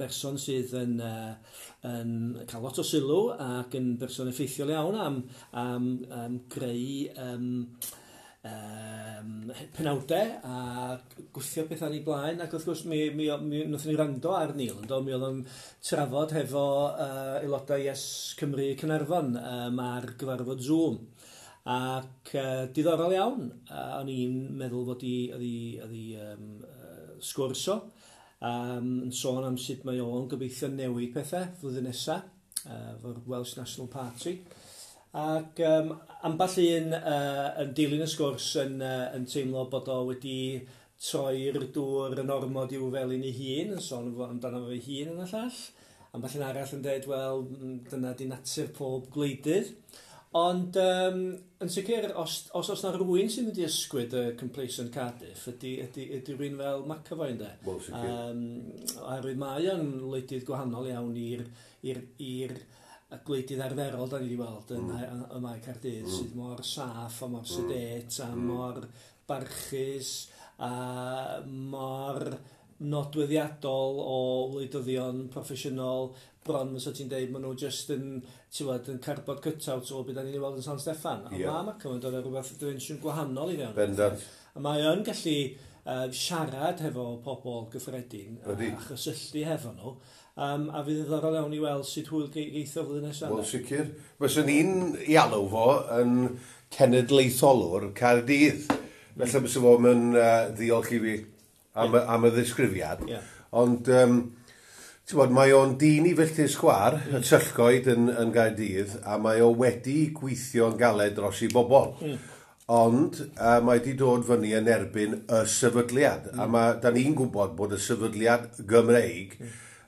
berson sydd yn cael lot o sylw ac yn berson effeithiol iawn am greu penawdau a gwthio pethau yn ei blaen, ac wrth gwrs mi wnaethon ni wrando ar Neil, yndo, mi oedd o'n trafod hefo aelodau Yes Cymru Caernarfon ar gyfarfod Zoom ac diddorol iawn, o'n i'n meddwl fod i oedd i sgwrs o yn sôn am sut mae o'n gobeithio newid pethau flwyddyn nesaf efo'r Welsh National Party. Ac ambell un yn dilyn y sgwrs yn teimlo bod o wedi troi'r dŵr yn ormod i'w felin ei hun, yn sôn amdano fe hun yn y llall. Ambell un arall yn dweud, wel, dyna di natur pob gwleidydd. Ond yn sicr, os na rhywun sy'n mynd i ysgwyd y complacent Cardiff, ydy rhywun fel McAvoy, ynddo? Wel, sicr. Oherwydd mae o'n wleidydd gwahanol iawn i'r y gwleidydd arferol da ni wedi weld yn Mae Caerdydd, sydd mor saff a mor sedate a mor barchus a mor nodweddiadol o wleidyddion proffesiynol, bron fysa ti'n deud maen nhw just yn, ti'n gwbod, yn cardboard cut-out o beth da ni'n ei weld yn San Steffan. A mae McAvoy yn dod â rhywbeth dimensiwn gwahanol i fewn. A mae o'n gallu siarad hefo pobl gyffredin a chysylltu hefo nhw. A fydd yn ddiddorol iawn i weld sut hwyl geith o flwyddyn nesaf. Wel, sicr. Fyswn i'n ei alw fo yn cenedlaetholwr Caerdydd. Felly bysa fo yn ddiolch i fi am y ddisgrifiad. Ond, ti'n bod, mae o'n dyn i filltir sgwar, y Tyllgoed yn Gaerdydd, a mae o wedi gweithio'n galed dros i bobl. Ond mae wedi dod fyny yn erbyn y sefydliad. A mae, da ni'n gwybod bod y sefydliad Gymreig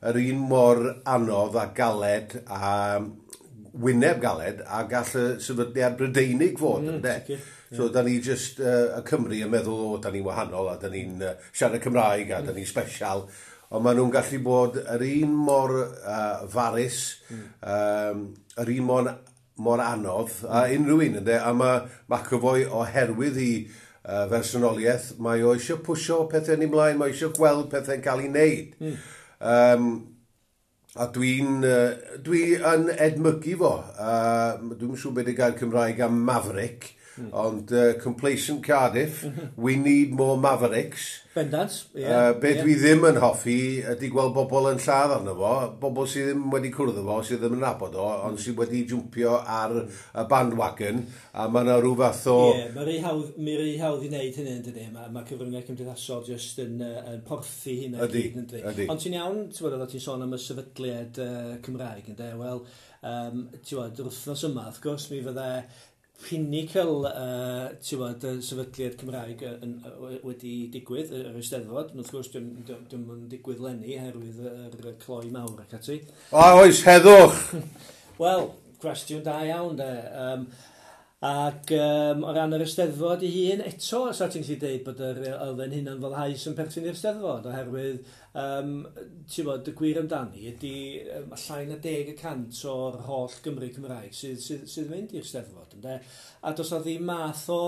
yr un mor anodd a galed a wyneb galed a gall y sefydliad Brydeinig fod, ynde? Sicr. So, da ni just, y Cymru yn meddwl, o, da ni'n wahanol a da ni'n siarad Cymraeg a da ni'n special. Ond maen nhw'n gallu bod yr un mor farus, yr un mor anodd a unrhyw un, ynde? A mae McAvoy, oherwydd i fersonoliaeth, mae o eisiau pwsio pethau yn ei mlaen, mae eisiau gweld pethau'n cael ei wneud. A dwi yn edmygu fo. Dwi'n siŵr beth y gair Cymraeg am maverick, ond complacent Cardiff, we need more mavericks. Bendant, ie. Be dwi ddim yn hoffi ydy gweld bobl yn lladd arno fo, bobl sydd ddim wedi cwrdd â fo, sydd ddim yn nabod o, ond sydd wedi jwmpio ar y bandwagon, a mae yna rhyw fath o. Ie, mae rhy hawdd i wneud hynny, yn dydi? Mae cyfryngau cymdeithasol just yn porthi hynna gyd, yn dydi? Ydy. Ond ti'n iawn, ti'n bod, oeddet ti'n sôn am y sefydliad Cymraeg, ynddo? Wel, ti'n bod, yr wythnos yma, wrth gwrs, mi fydde pinnacle, ti'n bod, y sefydliad Cymraeg wedi digwydd, yr Eisteddfod. Wrth gwrs, dim yn digwydd leni, oherwydd yr cloi mawr ac ati. O, oes, heddwch! Wel, cwestiwn da iawn, de. Ac o ran yr Eisteddfod ei hun, eto, sa ti'n gallu deud bod yr elfen hunan foddhaus yn perthyn i'r Eisteddfod, oherwydd, ti'n bod, y gwir amdani ydy llai na 10% o'r holl Gymru Cymraeg sydd mynd i'r Eisteddfod, ynde? A does na ddim math o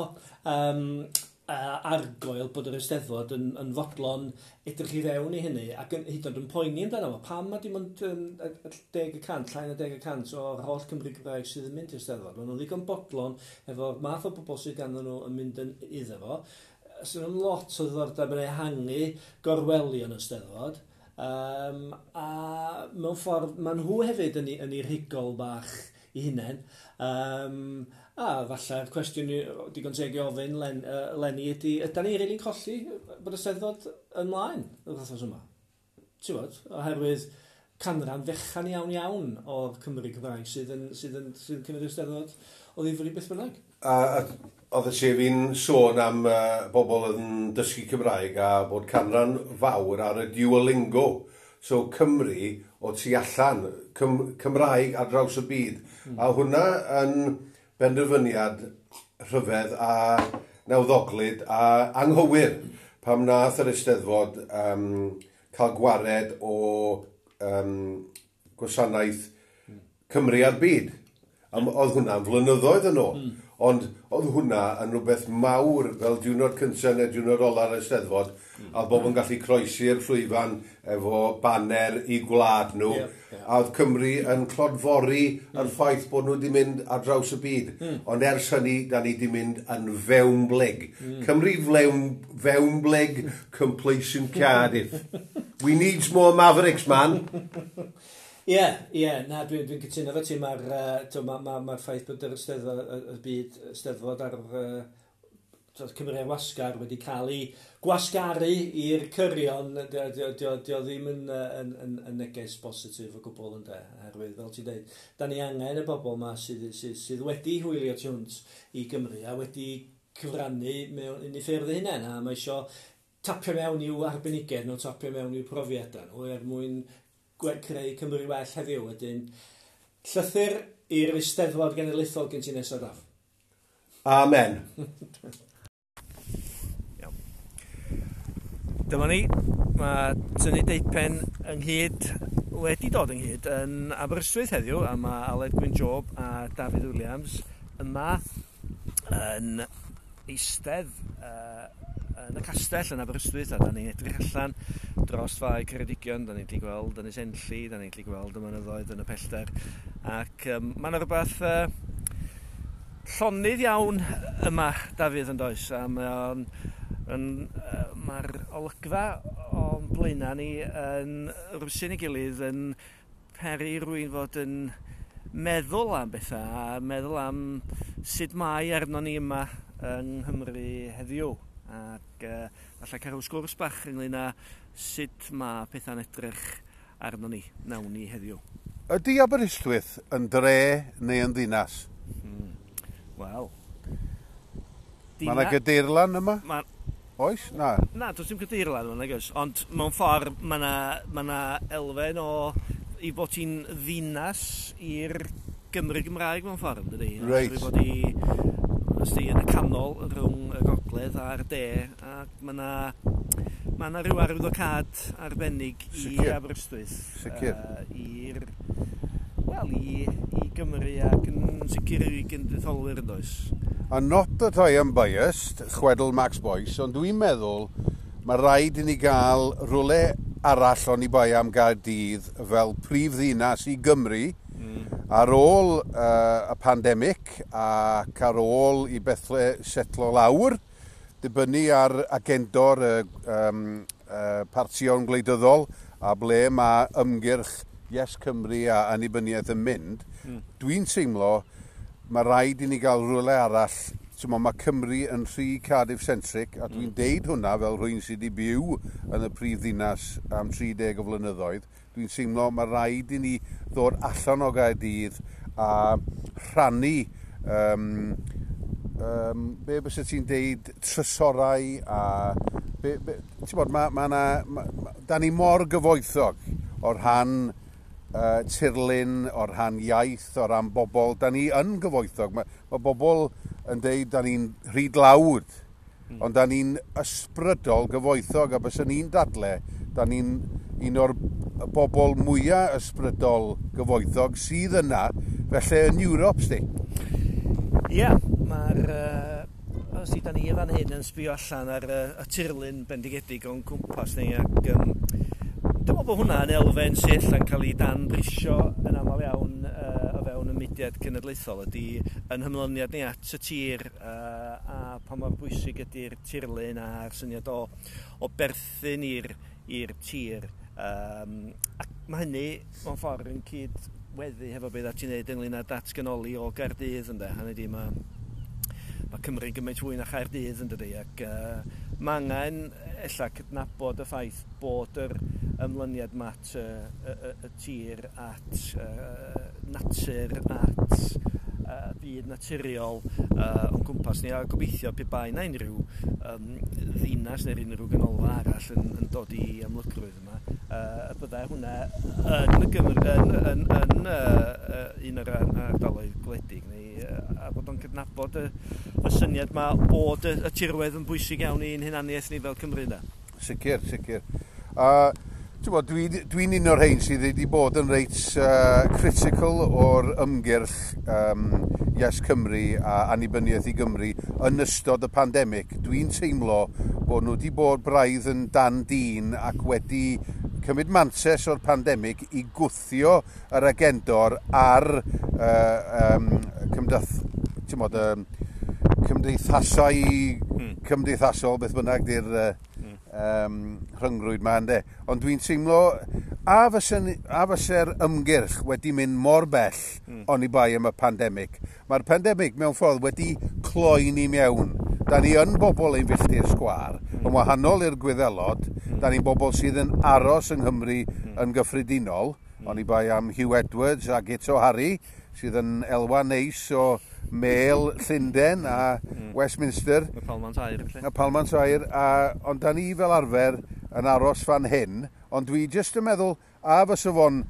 argoel bod yr Eisteddfod yn fodlon edrych i fewn i hynny ac yn, hyd yn oed yn poeni amdano fo. Pam mae dim ond 10%, llai na 10% o'r holl Cymru Gymraeg sydd yn mynd i'r Eisteddfod? Maen nhw'n ddigon bodlon efo'r math o bobl sydd ganddyn nhw yn mynd yn iddo fo. Sydd yn lot o ddiddordeb yn ehangu gorwelion y Steddfod. A mewn ffordd, maen nhw hefyd yn ei rhigol bach i hunain. A falle'r cwestiwn digon teg i ofyn Lenny ydy, ydy ni rili'n colli bod y Steddfod ymlaen yr wythnos yma? Ti'n bod? Oherwydd canran fechan iawn iawn o'r Cymru Cymraeg sydd yn cymryd y Steddfod o ddifri beth bynnag. A oedd y sef fi'n sôn am bobl yn dysgu Cymraeg a bod canran fawr ar y Duolingo. So Cymru o tu allan, Cymraeg ar draws y byd. A hwnna yn benderfyniad rhyfedd a nawddoglyd a anghywir pam nath yr Eisteddfod cael gwared o gwasanaeth Cymru a'r byd. A oedd hwnna'n flynyddoedd yn ôl. Ond oedd hwnna yn rhywbeth mawr fel diwrnod cyntaf neu diwrnod ola'r Eisteddfod, a oedd bobl yn gallu croesi'r llwyfan efo baner i gwlad nhw. Ie, ie. A oedd Cymru yn clodfori yr ffaith bod nhw wedi mynd ar draws y byd. Ond ers hynny, da ni wedi mynd yn fewnblyg. Cymru fewnblyg, complacent Cardiff. We need more Mavericks, man. Ie, na, dwi'n cytuno efo ti, mae'r ma ffaith bod yr Eisteddfod, y byd Eisteddfod ar Cymru ar wasgar wedi cael ei gwasgaru i'r cyrion, dio ddim yn neges bositif o gwbl ynde, oherwydd, fel ti'n dweud, da ni angen y bobl yma sydd wedi hwylio tu hwnt i Gymru a wedi cyfrannu mewn un i ffyrdd eu hunain, a mae isio tapio mewn i'w arbenigedd nhw, tapio mewn i'w profiadau nhw, er mwyn creu Cymru well heddiw. Wedyn, llythyr i'r Eisteddfod Genedlaethol gen ti nesaf, Daf. Amen. Iawn. Dyma ni, mae tynnu deupen ynghyd wedi dod ynghyd yn Aberystwyth heddiw, a mae Aled Gwyn Job a Dafydd Williams yma yn eistedd yn y castell yn Aberystwyth, a da ni'n edrych allan dros Fae Ceredigion, da ni'n gallu gweld Ynys Enlli, da ni'n gallu gweld y mynyddoedd yn y pellter, ac mae yna rhywbeth llonydd iawn yma, Dafydd, yn does, a mae'r olygfa o'n blaenau ni yn rwsyn ei gilydd yn peri rywun fod yn meddwl am bethau a meddwl am sut mae arno ni yma yng Nghymru heddiw. Ac falle cael rhyw sgwrs bach ynglyn â sut mae pethau'n edrych arno ni, nawn ni heddiw. Ydy Aberystwyth yn dre neu yn ddinas? Wel, Mae yna gadeirlan yma? Oes? Na. Na, does dim gadeirlan yma, nag oes. Ond mewn ffordd, mae yna ma elfen o i bod hi'n ddinas i'r Gymru Gymraeg mewn ffordd, dydy? Reit. Oherwydd bod hi, os di, yn y canol rhwng y gogledd a'r de, ac mae yna rhyw arwyddocâd arbennig i Aberystwyth. I'r, wel, i Gymru ac yn sicr i genedlaetholwyr, yn does. A not that I am biased, chwedl Max Boyce, ond dwi'n meddwl mae rhaid i ni gael rhywle arall oni bai am Gaerdydd fel prif ddinas i Gymru ar ôl y pandemig ac ar ôl i bethau setlo lawr, dibynnu ar agendo'r partion gwleidyddol a ble mae ymgyrch Yes Cymru a annibyniaeth yn mynd, dwi'n teimlo mae rhaid i ni gael rhywle arall. T'mo, mae Cymru yn rhy Cardiff-centric, a dwi'n deud hwnna fel rhywun sydd wedi byw yn y prif ddinas am 30 o flynyddoedd. Dwi'n teimlo mae rhaid i ni ddod allan o Gaerdydd a rhannu be byse ti'n deud, trysorau a be, ti'n bod, ma na, da ni mor gyfoethog o rhan tirlun, o rhan iaith, o ran bobl. Da ni yn gyfoethog. Mae bobl yn deud da ni'n rhy dlawd, ond da ni'n ysbrydol gyfoethog, a bys ni'n dadle, da ni'n un o'r bobl mwyaf ysbrydol gyfoethog sydd yna, felly yn Ewrop, sti. Ie, mae'r os da ni fan hyn yn sbio allan ar y tirlun bendigedig o'n cwmpas ni, ac dwi'n meddwl bod hwnna yn elfen sydd yn cael ei danbrisio yn aml iawn o fewn y mudiad cenedlaethol, ydy yn hymlyniad ni at y tir a pa mor bwysig ydy'r tirlun a'r syniad o berthyn i'r tir. Ac mae hynny mewn ffordd yn cydweddu hefo beth ti'n neud ynglyn â datganoli o Gaerdydd, ynde. Hynny ydi, mae Cymru'n gymaint fwy na Chaerdydd, yn dydi, ac mae angen ella cydnabod y ffaith bod yr ymlyniad ma at y tir, at natur, at byd naturiol o'n cwmpas ni, a gobeithio pe bai na unrhyw ddinas neu'r unrhyw ganolfan arall yn dod i amlygrwydd yma, y byddai hwnna yn y Gymru, yn un o'r ardaloedd gwledig neu, a bod o'n cydnabod y syniad ma bod y tirwedd yn bwysig iawn i'n hunaniaeth ni fel Cymru, ynde? Sicr, sicr. Ti'n bod, dwi'n un o'r rhain sydd wedi bod yn reit critical o'r ymgyrch Yes Cymru a annibyniaeth i Gymru yn ystod y pandemig. Dwi'n teimlo bod nhw wedi bod braidd yn dan dîn ac wedi cymryd mantais o'r pandemig i gwthio yr agendor ar ti'n bod, cymdeithasau cymdeithasol, beth bynnag di'r rhyngrwyd ma, ynde. Ond dwi'n teimlo, a fyse'r ymgyrch wedi mynd mor bell oni bai am y pandemig. Mae'r pandemig mewn ffordd wedi cloi ni mewn. Da ni yn bobl ein filltir sgwâr, yn wahanol i'r Gwyddelod, da ni'n bobl sydd yn aros yng Nghymru yn gyffredinol, oni bai am Hugh Edwards a Guto Harri, sydd yn elwa neis o Mêl Llundain a Westminster. Y Palmant Aur, felly. Y Palmant Aur, ond da ni fel arfer yn aros fan hyn, ond dwi jyst yn meddwl, a fysa fo'n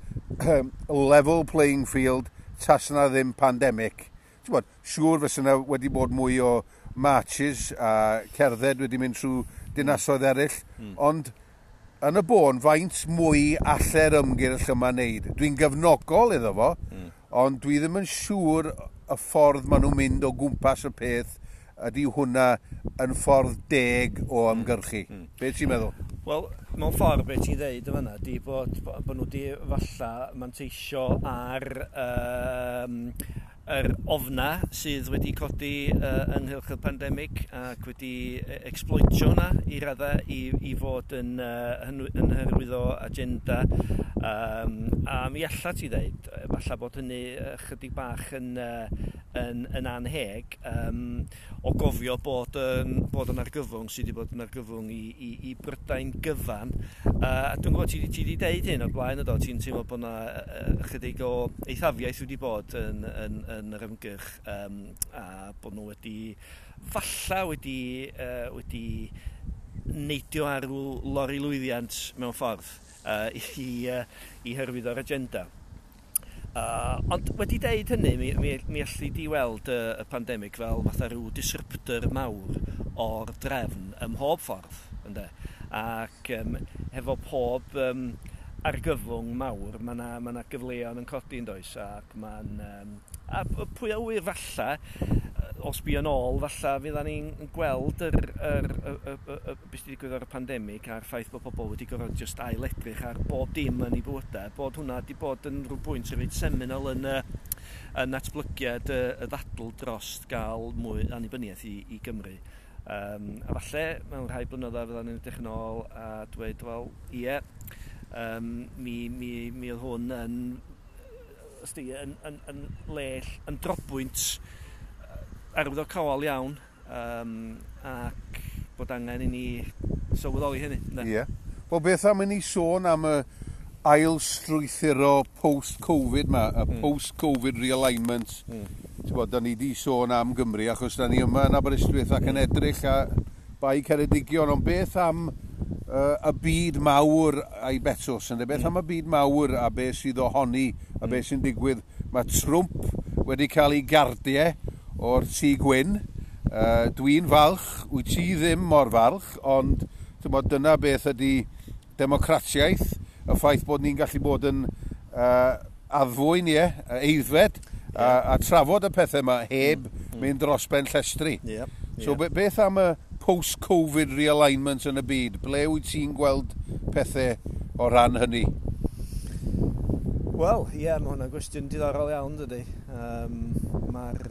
level playing field tas na ddim pandemig. Ti'n bod, siŵr fysa yna wedi bod mwy o marches a cerdded wedi mynd trwy dinasoedd eraill, ond yn y bôn, faint mwy alle'r ymgyrch yma wneud? Dwi'n gefnogol iddo fo, ond dwi ddim yn siŵr y ffordd maen nhw'n mynd o gwmpas y peth ydy hwnna yn ffordd deg o ymgyrchu. Be ti'n meddwl? Wel, mewn ffordd beth ti'n dweud yn fan'na di bod nhw wedi falla manteisio ar yr ofna sydd wedi codi ynghylch y pandemig ac wedi exploitio hwnna i raddau i fod yn hyrwyddo agenda. A mi alla ti ddeud, falle bod hynny chydig bach yn anheg, o gofio bod yn argyfwng sydd wedi bod yn argyfwng i Brydain gyfan. A dwi'n gwybod ti wedi deud hyn o'r blaen, ydo, ti'n teimlo bod yna chydig o eithafiaeth wedi bod yn yr ymgyrch, a bod nhw wedi falla wedi neidio ar ryw lori lwyddiant mewn ffordd i hyrwyddo'r agenda. Ond wedi deud hynny, mi allu di weld y pandemig fel fatha rhyw disruptor mawr o'r drefn ym mhob ffordd, ynde? Ac hefo pob argyfwng mawr, mae yna gyfleon yn codi, yn does, ac mae'n a pwy a ŵyr falla, os bu yn ôl, falla fydda ni'n gweld yr, y, y, y, y, beth sydd wedi digwydd ar y pandemig a'r ffaith bod pobl wedi gorfod just ail-edrych ar bob dim yn eu bywydau, bod hwnna wedi bod yn rhyw bwynt reit seminal yn natblygiad y ddadl dros gael mwy annibyniaeth i Gymru. A falle mewn rhai blynyddoedd fydda ni'n edrych yn ôl a dweud, wel, ie, mi oedd hwn yn, ysdi, yn le, yn drobwynt arwyddocaol iawn, ac bod angen i ni sylweddoli hynny. Ie. Yeah. Wel, beth am i ni sôn am y ail strwythuro post-Covid ma, y post-Covid realignment. Ti'n bod, da ni di sôn am Gymru, achos da ni yma yn Aberystwyth ac yn edrych a Bae Ceredigion, ond beth am y byd mawr a'i betws, ynde? Beth am y byd mawr a beth sydd ohoni a beth sy'n digwydd? Mae Trump wedi cael ei gardiau o'r Tŷ Gwyn. Dwi'n falch, wyt ti ddim mor falch, ond ti'n dyna beth ydy democratiaeth, y ffaith bod ni'n gallu bod yn addfwyn, ie, aeddfed, a trafod y pethau yma heb mynd dros ben llestri. So beth am y post-Covid realignment yn y byd? Ble wyt ti'n gweld pethau o ran hynny? Wel, ie, mae hwnna'n gwestiwn diddorol iawn, dydy. Mae'r...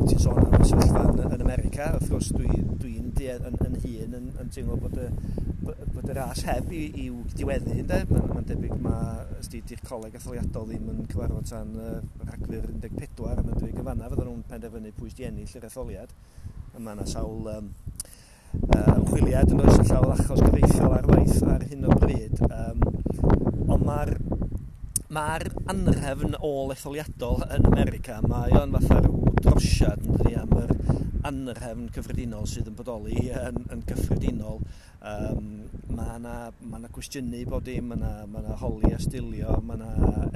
ti'n sôn am y sefyllfa yn America, wrth gwrs dwi'n dwi yn hun yn teimlo bod y ras heb i'w diweddu, ynde? Mae'n debyg mae di'r coleg etholiadol ddim yn cyfarfod tan Rhagfyr 14, a mae'n debyg yn fanna fydden nhw'n penderfynu pwy sydd 'di ennill yr etholiad. A mae yna sawl ymchwiliad yn oes, llawer achos gyfreithiol ar waith ar hyn o bryd. Ond mae'r anrhefn ôl etholiadol yn America, mae o'n fatha rhyw drosiad, yn dydi, am yr anrhefn cyffredinol sydd yn bodoli yn gyffredinol. Mae yna cwestiynu bod dim, mae yna holi a stilio, mae yna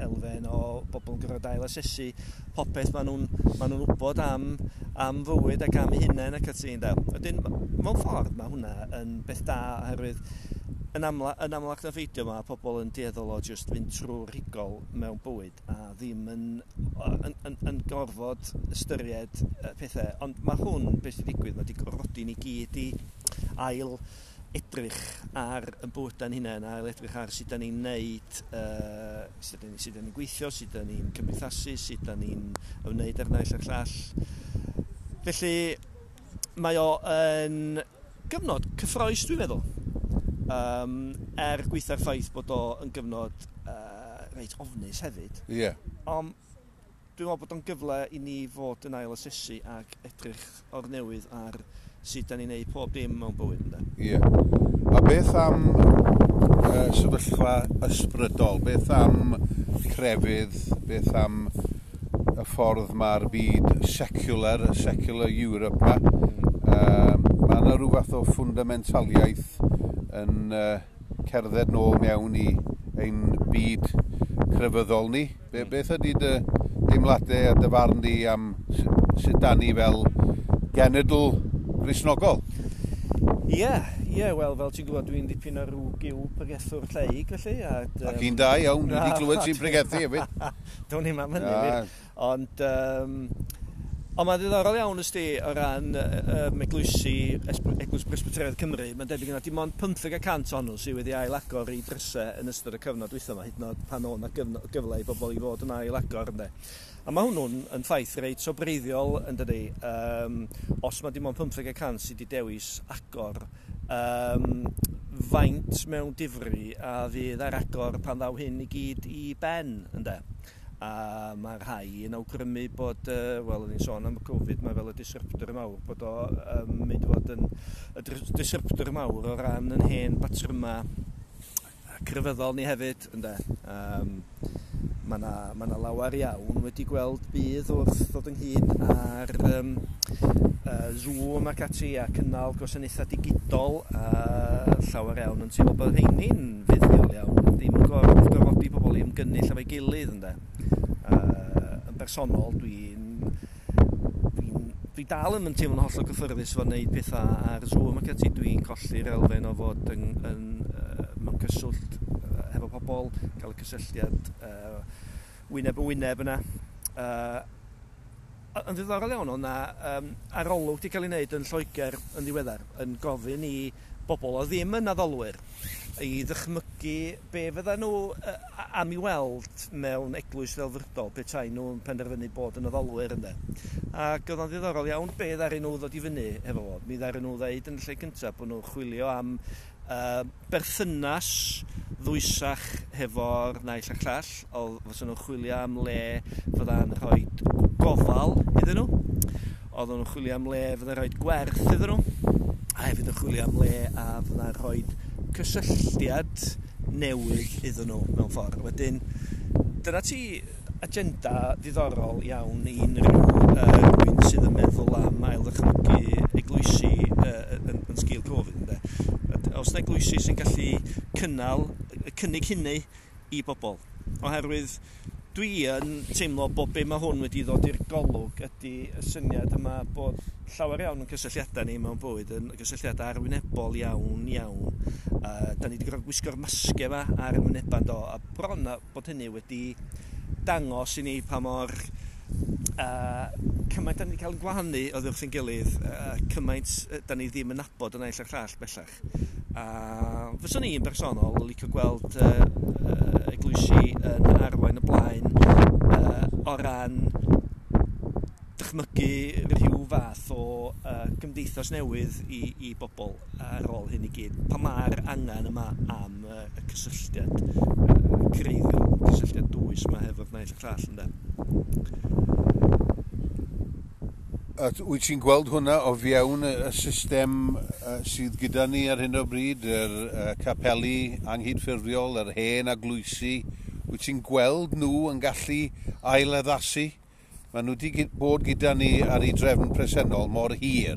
elfen o bobl yn gorfod ail asesu popeth maen nhw'n wybod am fywyd ac am eu hunain ac ati. Wedyn, mewn ffordd mae hwnna yn beth da, oherwydd yn amlach na pheidio mae pobl yn dueddol o just fynd trwy'r rhigol mewn bywyd a ddim yn gorfod ystyried pethau. Ond mae hwn, beth sy'n digwydd, mae wedi gorfodi ni gyd i ail edrych ar y bywydau'n hunain, ail edrych ar sut da ni'n neud, sut da ni'n gweithio, sut da ni'n cymdeithasu, sut da ni'n ymwneud â'r naill a'r llall. Felly mae o yn gyfnod cyffrous, dwi'n meddwl. Er gweitha'r ffaith bod o yn gyfnod reit ofnus hefyd. Ie. Ond dwi'n meddwl bod o'n gyfle i ni fod yn ail asesu ac edrych o'r newydd ar sut da ni'n neud pob dim mewn bywyd, ynde? Ie. A beth am sefyllfa ysbrydol? Beth am crefydd? Beth am y ffordd mae'r byd secular, y secular Europe ma? Mae yna rhyw fath o fundamentaliaeth yn cerdded nôl mewn i ein byd crefyddol ni. Beth ydy dy deimladau a dy farn di am sut da ni fel genedl Gristnogol? Ie, wel, fel ti'n gwybod, dwi'n dipyn o rhyw gyw pregethwr lleig, felly. Ac un da iawn, dwi wedi clywed ti'n pregethu hefyd. Do'n i'm am hynny, wir. Ond Ond mae'n ddiddorol iawn, ysdi, o ran eglwysi, Eglwys Presbyteraidd Cymru, mae'n debyg yna dim ond 15% ohonyn nhw sydd wedi ail-agor i drysau yn ystod y cyfnod dwytha yma, hyd yn oed pan oedd 'na gyfle i bobl i fod yn ail-agor, ynde. A mae hwnnw'n yn ffaith reit sobreiddiol, yn dydi. Os mae dim ond 15% sydd wedi dewis agor, faint mewn difri a fydd ar agor pan ddaw hyn i gyd i ben, ynde. A mae rhai yn awgrymu bod, wel, o'n i'n sôn am y Covid, mae fel y disruptor mawr, bod o mynd i fod yn y disruptor mawr o ran yn hen batryma crefyddol ni hefyd, ynde. Mae 'na lawer iawn wedi gweld budd wrth ddod ynghyd ar Zoom ac ati a cynnal gwasanaethau digidol, a llawer iawn yn teimlo bod rheini'n fuddiol iawn, ddim yn gorfodi pobl i ymgynnull efo'i gilydd, ynde. Yn bersonol, dwi dal yn teimlo'n hollol gyffyrddus fo wneud pethau ar Zoom ac ati. Dwi'n colli'r elfen o fod mewn cyswllt hefo pobl, cael y cysylltiad wyneb yn wyneb yna. Yn ddiddorol iawn, oedd 'na arolwg wedi cael ei wneud yn Lloegr yn ddiweddar yn gofyn i bobl oedd ddim yn addolwyr i ddychmygu be fydda nhw am i weld mewn eglwys ddelfrydol petai nhw'n penderfynu bod yn addolwyr, ynde. Ac oedd o'n ddiddorol iawn be ddaru nhw ddod i fyny efo fo. Mi ddaru nhw ddeud yn y lle cyntaf bod nhw'n chwilio am berthynas ddwysach hefo'r naill a'r llall. Oedd fysa nhw'n chwilio am le fydda'n rhoi gofal iddyn nhw. Oedden nhw'n chwilio am le fydda'n rhoi gwerth iddyn nhw. A hefyd yn chwilio am le a fydda'n rhoi cysylltiad newydd iddyn nhw mewn ffordd. Wedyn, dyna ti agenda ddiddorol iawn i unrhyw rhywun sydd yn meddwl am ail-ddychmygu eglwysi yn sgil Covid, ynde. Os na eglwysi sy'n gallu cynnal, cynnig hynny i bobl. Oherwydd dwi yn teimlo bod be mae hwn wedi ddod i'r golwg ydy y syniad yma bod llawer iawn yn cysylltiadau ni mewn bywyd yn gysylltiadau arwynebol iawn iawn. Da ni wedi gorfod gwisgo'r masgau yma ar y wynebau, do, a bron a bod hynny wedi dangos i ni pa mor Cymaint da ni wedi cael yn gwahanu oddi wrth ein gilydd, cymaint da ni ddim yn nabod y naill a'r llall bellach. A fyswn i'n bersonol licio gweld eglwysi yn arwain y blaen o ran dychmygu rhyw fath o gymdeithas newydd i bobl ar ôl hyn i gyd. Pan mae'r angen yma am y cysylltiad creiddiol, cysylltiad dwys yma hefo'r naill a'r llall, ynde. Wyt ti'n gweld hwnna o fewn y system sydd gyda ni ar hyn o bryd, yr capeli anghydffurfiol, yr hen eglwysi? Wyt ti'n gweld nhw yn gallu ailaddasu? Maen nhw wedi bod gyda ni ar ei drefn presennol mor hir.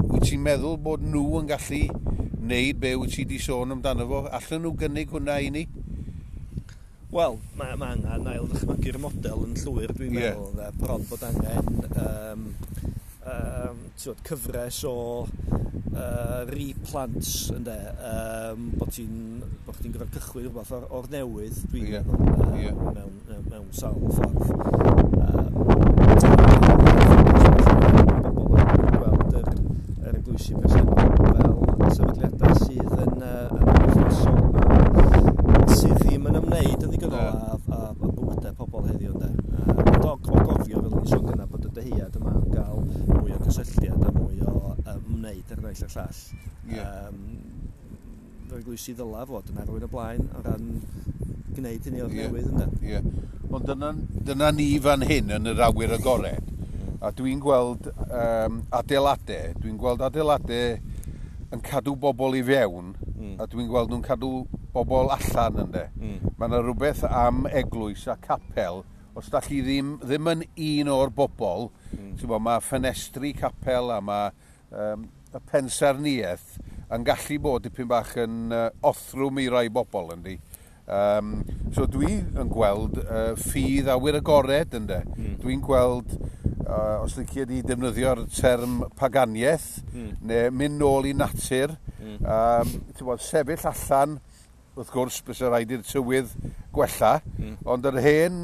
Wyt ti'n meddwl bod nhw yn gallu wneud be wyt ti wedi sôn amdano fo? Allan nhw gynnig hwnna i ni? Wel, mae angen ail ddychmygu'r model yn llwyr, dwi'n meddwl. Bron bod angen cyfres o replants, ynde, bod ti'n gorfod cychwyn rhywbeth o'r newydd, dwi'n meddwl, mewn sawl ffordd. Bobl yn gweld yr eglwysi presennol fel sefydliadau sydd yn wythnosol a sydd ddim yn ymwneud yn ddigonol â bywydau pobl heddiw, ynde. Ond o gofio, fel o'n i'n sôn gynna, bod y dyhead yma am gael mwy o gysylltiad a mwy o ymwneud ar naill a'r llall. Yr eglwysi ddyla fod yn arwain y blaen o ran gwneud hynny o'r newydd, ynde. Ie. Ond dyna ni fan hyn yn yr awyr agored. A dwi'n gweld adeiladau, yn cadw bobl i fewn, a dwi'n gweld nhw'n cadw bobl allan, ynde. Mae yna rhywbeth am eglwys a capel, os da chi ddim yn un o'r bobl, mae ffenestri capel a mae y pensaernïaeth yn gallu bod dipyn bach yn othrwm i rai bobl, yndi. So dwi yn gweld ffydd awyr agored, ynde. Dwi'n gweld, os licio di defnyddio'r term paganiaeth, neu mynd nôl i natur, sefyll allan, wrth gwrs, bysa rhaid i'r tywydd gwella, ond yr hen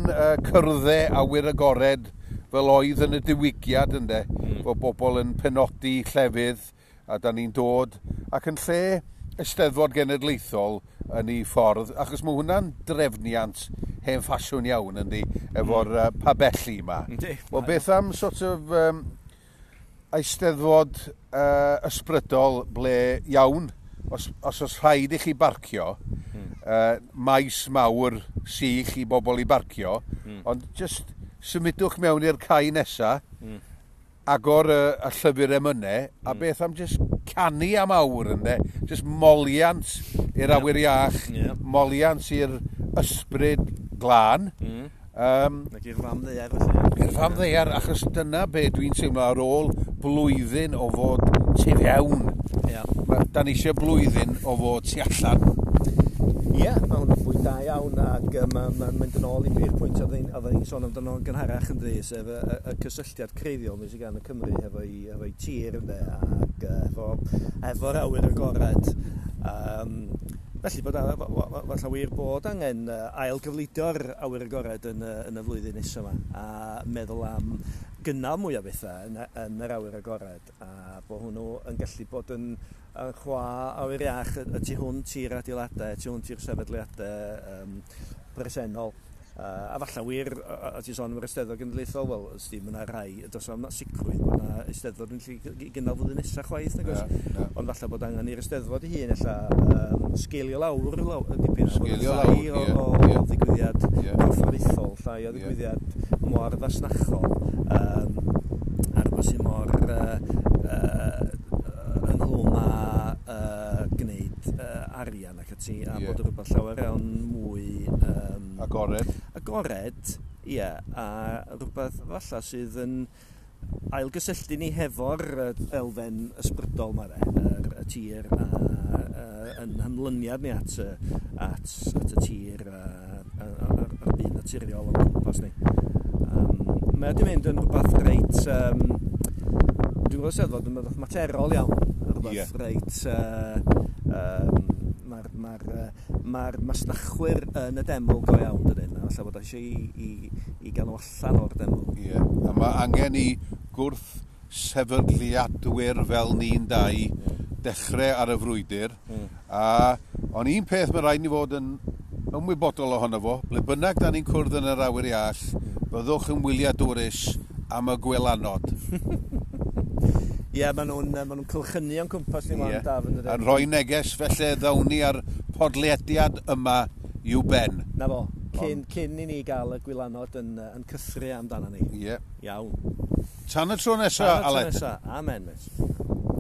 cyrddau awyr agored fel oedd yn y diwygiad, ynde, bod bobl yn penodi llefydd, a da ni'n dod, ac yn lle Eisteddfod Genedlaethol yn ei ffordd, achos mae hwnna'n drefniant hen ffasiwn iawn, yndi, efo'r pabelli yma. Wel, beth am sort of Eisteddfod ysbrydol ble iawn, os oes rhaid i chi barcio, maes mawr sych i bobl i barcio, ond just symudwch mewn i'r cae nesa, agor y llyfr emynau, a beth am just canu am awr, ynde? Just moliant i'r awyr iach, moliant i'r ysbryd glân. Ac i'r fam ddaear, felly. I'r fam ddaear, achos dyna be dwi'n teimlo ar ôl blwyddyn o fod tu fewn. Da ni eisiau blwyddyn o fod tu allan. Ie, mae hwnna'n bwynt da iawn, ac mae'n mynd yn ôl i'r pwynt oedden ni'n sôn amdano yn gynharach, ynddi, sef y cysylltiad creiddiol sydd gan y Cymru hefo'i tir, ynde, ac efo'r awyr agored. Felly, falle wir bod angen ailgyfleidio'r awyr agored yn y flwyddyn nesaf yma, a meddwl am gynnal mwy o bethau yn yr awyr agored, a bod hwnnw yn gallu bod yn chwa awyr iach y tu hwnt i'r adeiladau, y tu hwnt i'r sefydliadau presennol. A falle wir, a ti'n sôn am yr Eisteddfod Genedlaethol, wel, ysdi, mae yna rai, does am sicrwydd bod yna Eisteddfod yn gallu gynnal flwyddyn nesaf chwaith, nag oes? Ond falle bod angen i'r Eisteddfod ei hun, ella, sgeilio lawr dipyn, sgeilio lawr, o ddigwyddiad corfforaethol, llai o ddigwyddiad mor fasnachol, a rhywbeth sydd mor ynghlwm â gwneud arian ac ati, a bod rhywbeth llawer iawn mwy agored. Agored, ie, a rhywbeth falle sydd yn ailgysylltu ni hefo'r elfen ysbrydol yma, y tir a yn hymlyniad ni at y tir a'r byd naturiol o'n cwmpas ni. Mae wedi mynd yn rhywbeth reit, dwi'n gweld Eisteddfod yn rhywbeth materol iawn, rhywbeth reit, mae'r Mae'r ma masnachwyr yn y deml go iawn, dydyn. A falle bod eisiau i gael nhw allan o'r deml. Ie, yeah. A mae angen i gwrth sefydliadwyr fel ni'n dau dechrau ar y frwydr. A ond un peth mae rhaid ni fod yn ymwybodol ohono fo, ble bynnag da ni'n cwrdd yn yr awyr iach, byddwch yn wyliadwrus am y gwylanod. Ie, yeah, maen nhw'n ma nhw cylchynu o'n cwmpas ni wan, Daf, yn dydyn. Yn rhoi neges, felly ddawn ni ar podlediad yma i'w ben. Na fo, cyn i ni gael y gwylanod yn cythru amdano ni. Ie. Yeah. Iawn. Tan y tro nesaf, Aled. Tan y tro nesaf. Amen, mate.